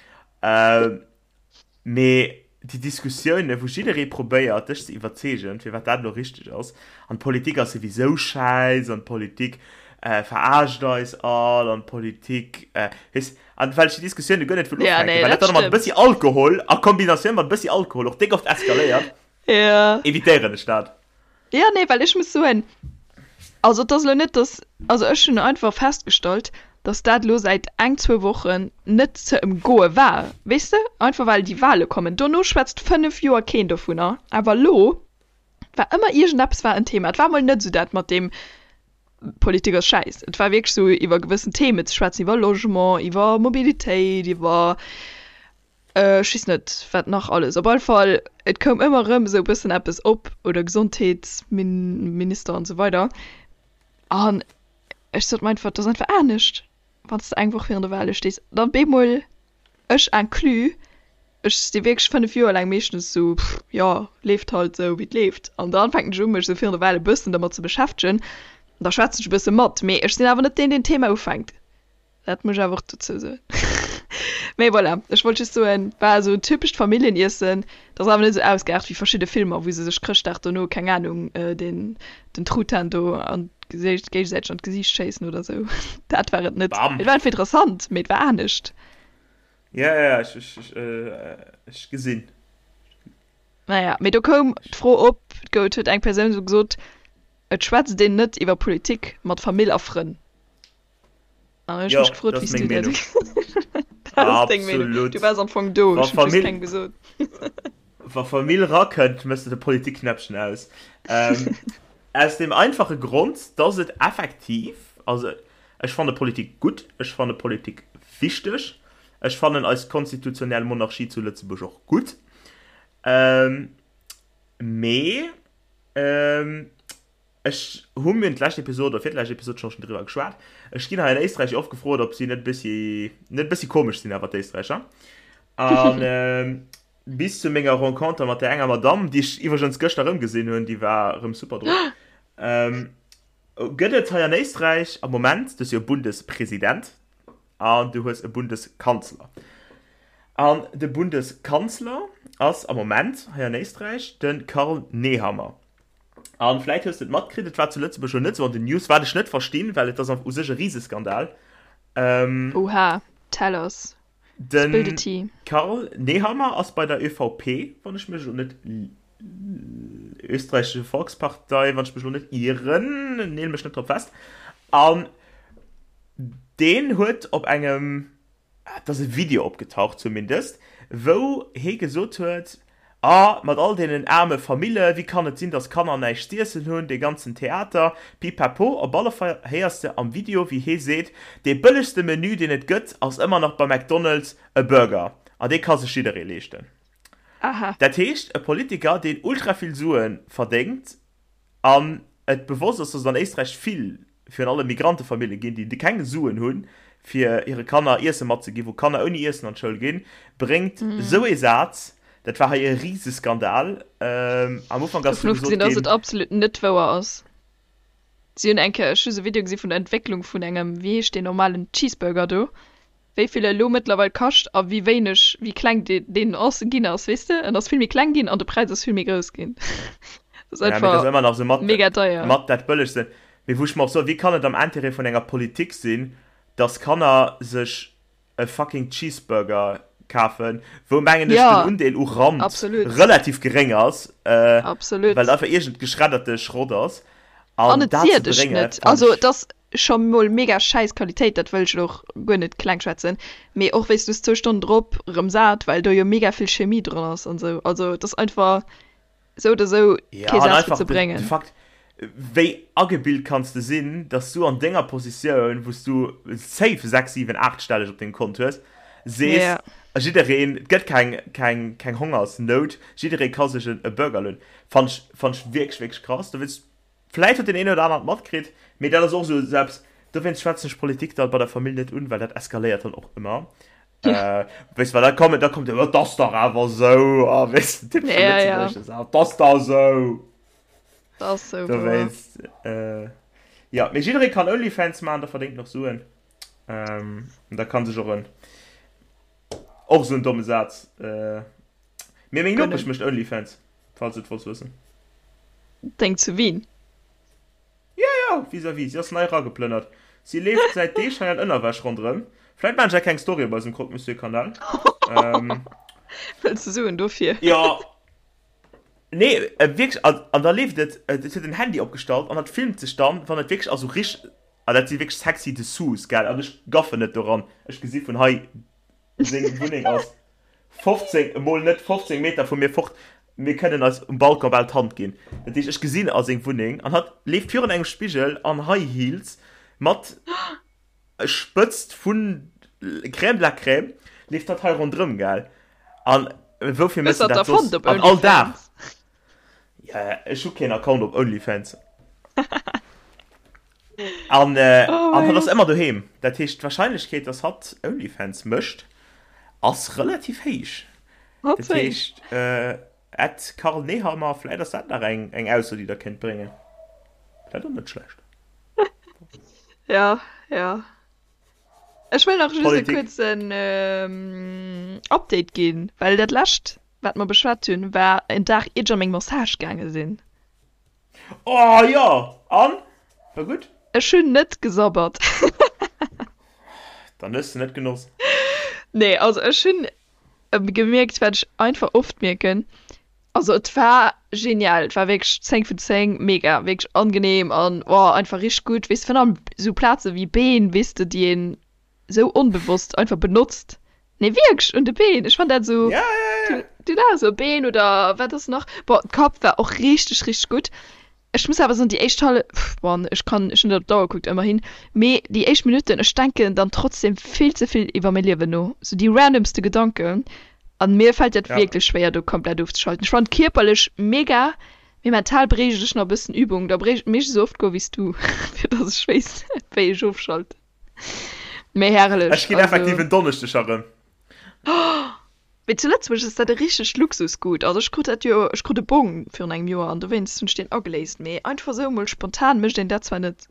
Mee déi Diskussioune wou jidderee probéiert dech ze iwwerzeegen firwat dat elo richteg ass an d'Politik ass souwisou schäiss an d'Politik verarscht eis all an d'Politik, weess, An well ech déi Diskussioun guer net wëll Ja, ufänken, nee, well dat dat dann mat e stëmmt. bëssi Alkohol, a Kombinatioun mat e bëssi Alkohol och déck oft eskaléiert, Ja. evitéieren ech dat. Ja, nee, well ech muss soen, also et ass elo net, dass, also ech hunn einfach festgestallt, dass dat elo säit eng, zwou Wochen net ze ëmgoe war, weess de, einfach well déi Wahle kommen. Dono schwätzt 5 Joer keen dovunner, awer elo war ëmmer iergendeppes war en Thema. Et war emol net esou dat mat deem Politik ass schäiss. Et war wierklech sou iwwer gewëssen Themen ze schwätzen, iwwer Logement, iwwer Mobilitéit, iwwer ech weess net wat nach alles. Op alle Fall, et koum ëmmer erëm esou e bëssen eppes op, oder Gesondheetsminister an esou weider. An ech sot mer einfach, et ass einfach anescht, wann s de eng Woch virun de Wale stees. Dann bemol Ech inclus, ech si wierklech 5 Joer laang meeschtens sou, pff, jo, leeft halt sou wéi et leeft. An dann fänken ech u mech sou virun der Wahl e bëssen dermat ze beschäftegen, an da schwätzen ech e bësse mat, mee ech sinn awer net deen deen d'Thema ufänkt, dat muss ech awer och dozou soen. Mee voilà, ech wollt just soen, war esou en typescht Familljeniessen, dat ass awer net esou ausgeaart wéi verschidde Filmer wou se sech Chrëschtdag dono, keng Ahnung, den den Truthahn do an d'Gesicht, géigesäiteg an d'Gesiicht schéissen oder sou. Dat war et net. Bam! Et war einfach interessant, mee et war anescht. Ja, ja, ech, ech, ech, ech gesinn. Naja, mee do koum d'Fro op, et huet eng Persoun sou gesot, et schwätzt een net iwwer Politik mat Famill a Frënn. An ech Jo, mech gefrot, dat wéi ass s du meng dat Meenung. Dat ass deng Meenung. Absolut. Du waars am Fong do, Wa ech hunn just Famill, kengem gesot. wa Famill rakënnt, méchs de de Politikknäppchen aus. Ähm, aus dem einfache Grond, dass et effektiv, also ech fanne Politik gutt, ech fanne Politik wichteg, ech fannen eis konstitutionell Monarchie zu Lëtzebuerg och gutt, ähm, mee ähm, Ech hu mir d'lescht Episod oder virlescht Episod scho schon driwwer geschwat. Ech ginn hei an Éisträich oft gefrot, ob si net bëssi net bëssi komesch sinn awer d'Éisträicher. An ähm, bis zu menger Renconter mat der enger Madamm, déi ech iwwregens gëschter erëm gesinn hunn, déi war erëm super drop. Ähm, Gëtt et hei an Éisträich am Moment, du hues jo e Bundespresident an du hues e Bundeskanzler. An de Bundeskanzler ass am Moment hei an Éisträich de Karl Nehammer. An vläit hues de et matkritt, et war zu Lëtzebuerg lo net esou an den News, wat ech net verstinn, well et ass u sech e Riseskandal. Oha, tell us. Spill the tea. De Karl Nehammer ass bei der ÖVP, wann ech mech elo net Österreichische Volkspartei, wann ech mech elo net ieren, neel mech net drop fest. An deen huet op engem, et ass e Video opgetaucht zumindest, wou hee gesot huet, A mat all deenen aarme Famille, wéi kann et sinn, dass Kanner näischt z'iessen hunn, dee ganzen Theater, pipapo. Op alle Fall héiers de am Video, wéi hee seet, dee bëllegste Menü, deen et gëtt, ass ëmmer nach bei McDonald's e Burger. An dee ka sech jidderee leeschten. Aha. Dat heescht, e Politiker, deen ultra vill Sue verdéngt an et bewosst ass, dass et an Éisträich vill, virun allem Migrantefamillje ginn, déi keng Suen hunn, fir hire Kanner Iesse matzeginn, wou Kanner ouni Iessen an d'Schoul ginn, bréngt esou ee Saz, dat war hei e Riseskandal. Am Ufank ass du gesot ginn. Dovun ofgesinn, dass et absolut net wouer ass. Si hunn eng Kéier, ech hu se Video gesi vun der Entwécklung vun engem, wéi heescht deen normalen Cheeseburger do, wéi vill e elo mëttlerweil kascht a wéi wéineg, wéi kleng deen ass, ginn ass, weess de? En ass vill méi kleng ginn an de Präis ass vill méi grouss ginn. Dat ass einfach ëmmer nach esou mat, mega deier. Mat dat bëllegsten. Mee wou ech mer och soen, wéi kann et am Intérêt vun enger Politik sinn, dass Kanner sech e fucking Cheeseburger kafen, wou mengen ech den Undeel u Rand relativ geréng ass, well et einfach iergend geschredderte Schrott ass. An et siert dech net. Also et ass scho mol mega schäiss Qualitéit, dat wëll ech elo och guer net kleng schwätzen, mee och wéis du zwou Stonnen drop rëm sat, well do jo mega vill Chemie dran ass an sou. Also et ass einfach sou oder sou kee Saz fir ze bréngen. De Fakt, wéi agebilt kanns de sinn, dass du an denger Positioun, wou s du safe 6, 7, 8 stelleg op dengem Kont hues, sees, jiddereen, et gëtt keng, keng, keng Hongersnout, jidderee ka sech e Burger lueden, fannt ech, fannt ech wierklech, wierklech krass. Dowéinst, vläit huet deen een oder aneren et matkritt, mee dat ass och esou eppes, dowéinst schwätzen ech Politik dann bei der Famill net un, well dat eskaléiert dann och ëmmer. Äh, weess du, well da kommen, da kommt jo, et ass dach awer esou, a weess du, typesche Ja, ja. Lëtzebuergesche Saz, et ass dach esou. Dat ass sou, wouer. Dowéinst, äh, ja, mee jidderee kann Onlyfans maachen, da verdéngt en och Suen. Ähm, da kann sech och en, och esou en domme Saz, äh, mee meng Nopesch Gönnen. mécht Onlyfans, falls du et wollts wëssen. Deng zu Wien? Jo, jo, vis-à-vis. Si ass nei erageplënnert. Si leeft säit Deeg hei an Ënnerwäsch ronderëm. Vläit maachen ech eng kleng Story op eisem Croque Monsieur Kanal. Wëlls de Suen dofir? Jo. Nee, wierklech. An, an da leeft et, et huet en Handy opgestallt an dat filmt sech dann, wann et wierklech, also rich, an dat si wierklech sexy Dessous, gell, an ech gaffen net doran. Ech gesi vun hei Seng Wunneng ass 15, emol net 15 Meter vu mir fort. Mir kënnen eis um Balcon bal d'Hand ginn. Dat heescht, ech gesinn a seng Wunneng an hatt leeft virun engem Spigel an High Heels mat Spëtzt vun Crème de la Crème leeft hatt hei ronderëm, gell? An woufir Hues méchs de de dat da soss? fonnt op An all Dag. Onlyfans? Ja, ech hu keen Account op Onlyfans. An, äh, Oh an mein hatt ass Gott. ëmmer doheem. Dat heescht, d'Warscheinlechkeet, dass hatt Onlyfans mécht, ass relativ héich. Hatt Dat héich. heescht, äh, at Karl Nehammer, vläit ass dat nach eng, eng Ausso, déi der kéint bréngen. Dat och net schlecht. Ja, ja. Ech wëll nach just e Politik. kuerzen ähm, Update ginn, well dat lescht, wat mer beschwat hunn, war en Dag iert ech an meng Massage gaange sinn. Oh jo! An? War gutt? Ech hunn net gesabbert. Dann hues de net genoss. Nee, also ech hunn gemierkt, wat ech einfach oft mierken, also et war genial, et war wierklech 10 vun 10, mega, wierklech angenehm an oh, einfach richteg gutt, weess de, virun allem esou Plaze wéi Been, weess de, déi een sou onbewosst einfach benotzt. Nee wierklech un de Been, ech fann dat sou, Ja, ja, ja. du du sou Been oder wat ass nach, bon d'Kapp war och richteg richteg gutt. Ech muss awer soen déi éischt Hallef, bon ech kann ech hunn net op d'Auer gekuckt ëmmerhin, mee déi éischt Minutten, ech denken dann trotzdem vill ze vill iwwer mäi Liewen no, sou déi randomste Gedanken an mir fält dat Ja. wierklech schwéier do komplett ofzeschalten. Ech fannen kierperlech mega, mee mental bréicht ech nach e bëssen Übung, da bréicht mécht esou oft goe wéi s du fir dass ech weess wéi ech ofschalten. Mee herrlech, Ech ginn effektiv also. en Donneschdeg erëm. Mee zu Lëtzebuerg ass dat e richtegt Luxusgut. Also ech krut dat jo, ech krut e Bong virun engem Joer an dowéinst hunn ech deen ageléist. Mee einfach esou emol spontan mécht een dat zwar net.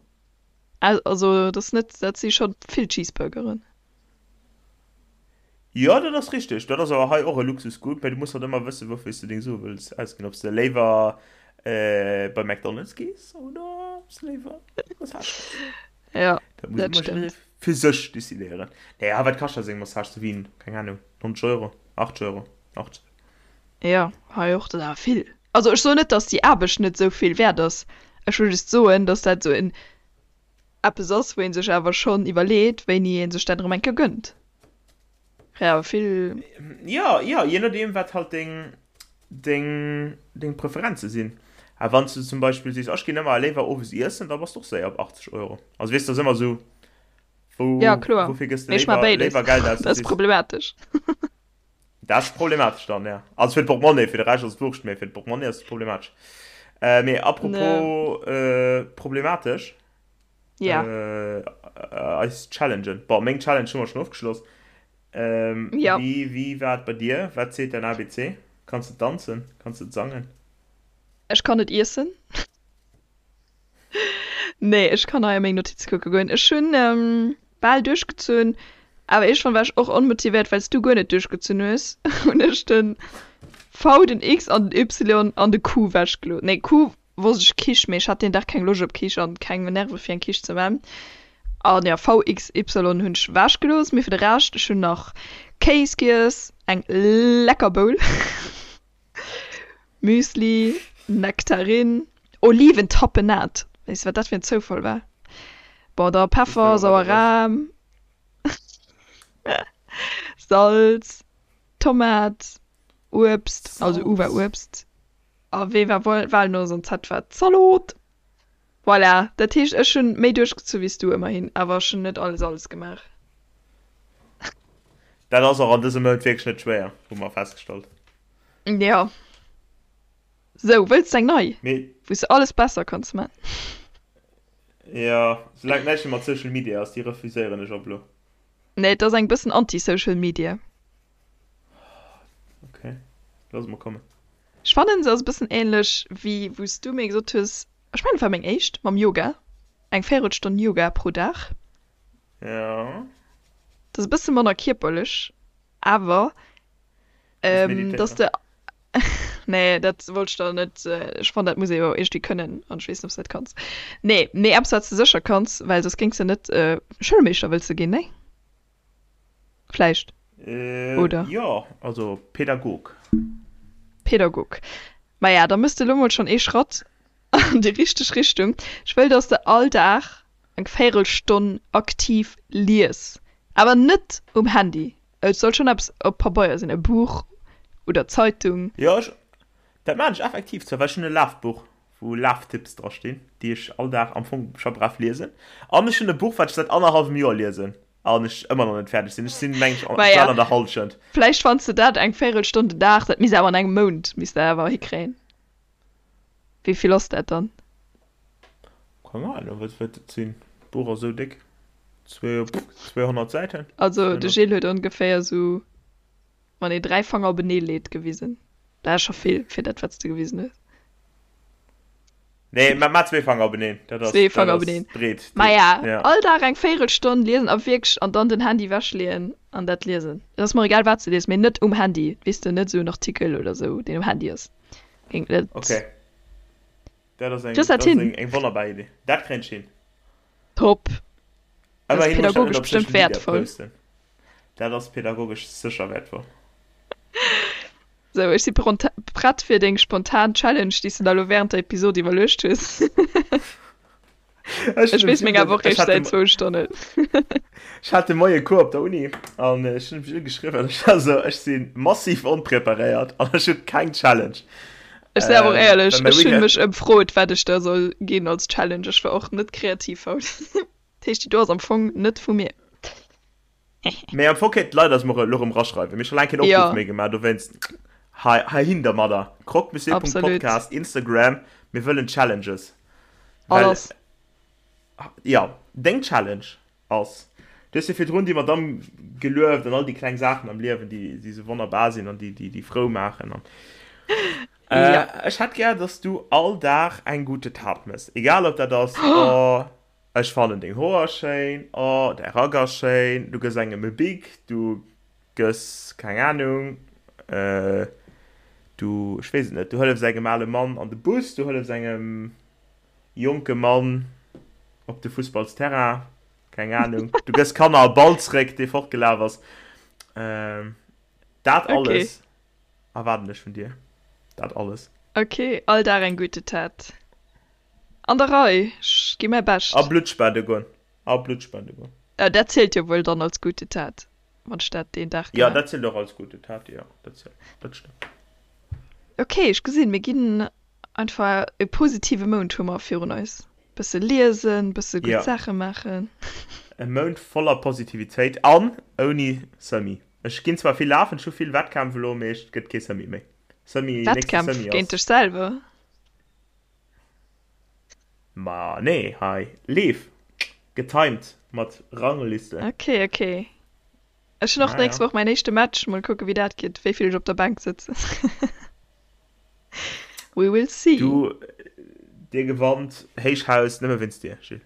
Also dat ass net, dat si scho vill Cheeseburgeren. Jo, dat ass richteg. Dat ass awer hei och e Luxusgut, mä du muss halt ëmmer wëssen, woufir s de deng Sue wëlls ausginn. Ob s de léiwer bei McDonald's gees oder ob s de léiwer eng Massage gees. Jo, Dat muss dat ëmmer jidderee stëmmt. fir sech decidéieren. Naja, wat kascht da seng Massage zu Wien? Keng Ahnung, 90 Euro, 80 Euro, 80. Jo, hei och, dat ass awer vill. Also ech soen net, datt déi Aarbecht net esou vill wäert ass. Ech wëll just soen, datt dat esou en eppes ass, wou ee sech awer schonn iwwerleet, wéini ee sech dat erëm eng Kéier gënnt. Kréie awer vill. Jo, jo, je nodeem wat halt deng, deng, deng Preferenze sinn. A wann s du zum Beispill sees, ech ginn ëmmer léiwer owes iessen, da bass de och séier op 80 Euro. Also weess, dat ass ëmmer esou, wou, Ja, kloer. woufir gëss de Mee ech maache léiwer, béides. léiwer Geld aus? Dat ass problematesch. Dat ass problematesch dann, ja. Also fir d'Portmonnaie, fir de Rescht ass et wurscht, mee fir d'Portmonnaie ass et problematesch. Äh, mee apropos äh, problematesch, Ja. äh, eis Challengen. Bon, meng Challenge hu mer schonn ofgeschloss. Ähm, Ja. Wéi, wéi war et bei dir? Wat seet däin ABC? Kanns de danzen? Kanns de sangen? Ech kann net iessen. Nee, ech kann hei a meng Notize kucke goen. Ech hunn bal duerchgezunn, awer iergendwann war ech och onmotivéiert, well s du guer net duerchgezunn hues, hunn ech de V, den X an den Y an de Q wechgelooss. Nee, Q wosst ech, Quiche, mee ech hat deen Dag keng Loscht op Quiche an keng Nerve fir eng Quiche ze man. An jo, V, X, Y hunn ech wechgelooss, mee fir de Rescht, ech hunn nach Kéis giess, eng lecker Bowl. Müsli, Nektarinn, Oliventapenade, weess wat dat fir en Zoufall war? Bon, da Peffer, sauer Ram, Salz, Tomat, Uebst, also U war Uebst, a W war Walnoss an Z war Zalot. Voilà, dat heescht ech hunn méi duerchgezu wéi s du, ëmmerhin, awer ech hunn net alles alles gemaach. Dat ass och an dësem Mount wierklech net schwéier, hu mer festgestallt. Jo. Sou, wëlls de eng nei, Mee. wou s de alles besser kanns man? Jo, soulaang et näischt méi mat Social Media ass, déi refuséieren ech op elo. Nee, et ass eng bëssen anti-Social Media. Ok, looss mol kommen. Ech fannen se ass e bëssen ähnlech wéi wou s du mir gesot hues, ech mengen et war meng éischt, mam Yoga, eng Véirelstonn Yoga pro Dag. Ja. Dat ass e bësse manner kierperlech, awer dass de, nee dat wollt ech der net, ech fannen dat muss ee jo iergendwéi kënnen an ech weess net ob s de dat kanns. Nee, mee eppes wat s de sécher kanns, well soss géings de net Schoulmeeschter wëlls de ginn, nee? Vläicht. Oder? Jo, also Pädagog. Pädagog. Maja, da mëss de elo mol schonn ee Schratt an déi richteg Richtung. Ech wëll, dass de all Dag eng Véirelstonn aktiv lies. Awer net um Handy. Et soll schonn eppes op Pabeier sinn, e Buch oder Zeitung. Jo, ech, dat maan ech effektiv zwar, well ech hunn e Lafbuch, wou Laftipps dra stinn, déi ech all Dag am Fong scho brav liesen. An ech hunn e Buch, wat ech säit annerhallwem Joer liesen an ech ëmmer nach net fäerdeg sinn. Ech sinn, meng ech, Maja, bal an der Hallschent. vläicht fanns de dat eng Véirelstonn den Dag, dat misst awer an engem Mount misst dat awer hikréien. Wéi vill ass dat dann? Keng Ahnung, wat wäert dat sinn? D'Buch ass esou déck, 200 Säiten? Also de 200. Gilles huet ongeféier esou Wann ee 3 Fanger openee leet gewisen. Dat ass scho vill fir dat wat s de gewisen hues. Nee, ma ma zwee Fanger openeen, dat ass, Zwee dat Fanger ass openeen. breet. Maja, Ja. all Dag eng Véirelstonn liesen a wierklech an dann den Handy wechleeën an dat liesen. Et ass mer egal wat s de lies, mee net um Handy, weess de, net esou en Artikel oder esou deen um Handy ass. Géing net. Okay. Dat ass eng, Kriss dat dat ass hin? eng, eng wonnerbar Idee. Dat kréien ech hin. Top. Dat ass Ëmmerhin muss ech dat net pädagogesch op Social bestëmmt Media wäertvoll. posten. Dat ass pädagogesch sécher wäertvoll. Sou, ech si prett fir deng spontan Challenge, déi s de der elo wärend der Episod iwwerluecht hues. Ech Ech weess meng awer och ech réischt hat de säit zwou Stonnen. Ech hat de Moie Cours op der Uni an ech hunn mech ugeschriwwen. Ech war sou, ech si massiv onpreparéiert an ech hu keng Challenge. Ech sinn awer och Ähm, éierlech, well mäi ech hunn Weekend mech ëmfrot, wat ech der soll ginn als Challenge. Ech war och net kreativ haut. Dat heescht, déi do ass am Fong net vu mir. Mee am Fong kéinten d'Leit eis mol elo erëm raschreiwen. Mir hu scho laang keen Opruff Jo. méi gemaach, dowéinst hei heihin dermadder. Absolut. Croque-monsieur.podcast, Instagram, mir wëllen Challenges. Well, Alles. jo, deng Challenge ass. Du hues jo virdrun déi Madamm gelueft an all déi kleng Saachen am Liewen, déi, déi sou wonnerbar sinn an déi, déi, déi frou maachen. An, äh, Ja. ech hätt gär, dass du all Dag eng gute Tat mëss. Egal ob dat ass, oh, ech fannen deng Hoer schéin, oh, däi Rack ass schéin, du gëss engem e Bic, du gëss, keng Anung, äh, du, ech weess et net, du hëllefs engem ale Mann an de Bus, du hëllefs engem jonke Mann op de Fussballsterrain, keng Anung, du gëss Kanner e Ball zréck, dee fortgelaf ass. Ähm, dat Okay. alles erwaarden ech vun dir. Dat alles. Okay, all Dag eng gute Tat. An der Rei, ech gi mäi A Bescht. Blutt spende goen. A Blutt spende goen. Äh, dat zielt jo wuel dann als gute Tat, wann ech dat deen Dag Ja, gemaach. dat zielt och als gute Tat, jo, dat zielt, dat stëmmt. Okay, ech gesinn, mir ginn Einfach e positive Mount hu mer virun eis. Bësse liesen, bësse gutt Ja. Saache maachen. E Mount voller Positivitéit an ouni Semi. Ech ginn zwar vill lafen, ech hu vill Wettkämpf elo, mee et gëtt kee Semi méi. Semi, nächste Wettkämpf Semi géint ass. dech selwer? Ma nee, hei Leef, getimed mat Rangliste. Ok, ok. Ech hunn och Ja, d'nächst ja. Woch mäin éischte Match. Mol kucke wéi dat geet, wéi vill ech op der Bänk sëtzen. We will see. Du, dir gewannt Héichhaus nëmme wéinst dir, Gilles.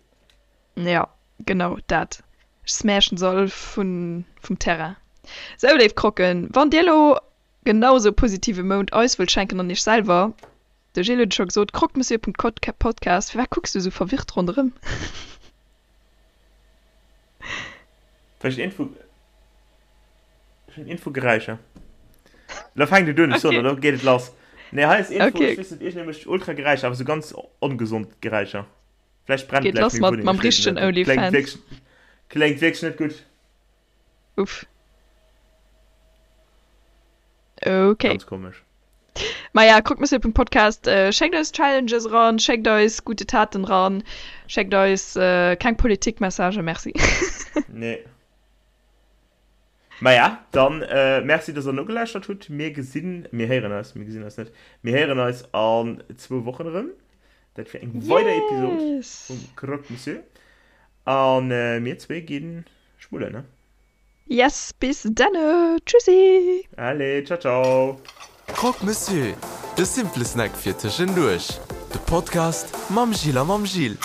Ja, genau dat. Ech smashen se all vun, vum Terrain. Sou, léif Croquen, wann dir elo genau sou e positive Mount eis wëllt schenken an iech selwer, de Gilles huet et scho gesot, croquemessieur.podcast. Firwat kucks du sou verwirrt ronderëm? Well ech iergendwou. Ech hunn Info Geräischer. Lo fänkt et un, ech soen, Okay. lo geet et lass. Nee, hei ass Info, Okay. ech weess net, iergendwéi mécht ultra Geräischer, awer sou ganz ongesond Geräischer. Vläicht brennt Geet gläich lass meng mat, Wunneng, mam ech weess et richtegen net. Dat kléngt Onlyfans. wierklech, kléngt wierklech net gutt. Uff. Okay. Ganz komesch. Maja, croquemessieur.podcast, schéckt eis Challenges eran, schéckt eis gute Taten eran, schéckt eis keng Politikmessagen, merci. Nee. Maja, dann Merci dass der nogelauschtert hutt. Mir gesinn, mir héieren eis, mir gesinn eis net, mir héieren eis an zwou Wochen erëm. Dat fir eng weider Episod Yes! vum Croque Monsieur. An mir zwee gi schmullen, ne? Yes, bis denne! Tschüssi! Allez, ciao ciao! Croque Monsieur, de simple Snack fir tëschenduerch. De Podcast mam Gilles a mam Gilles.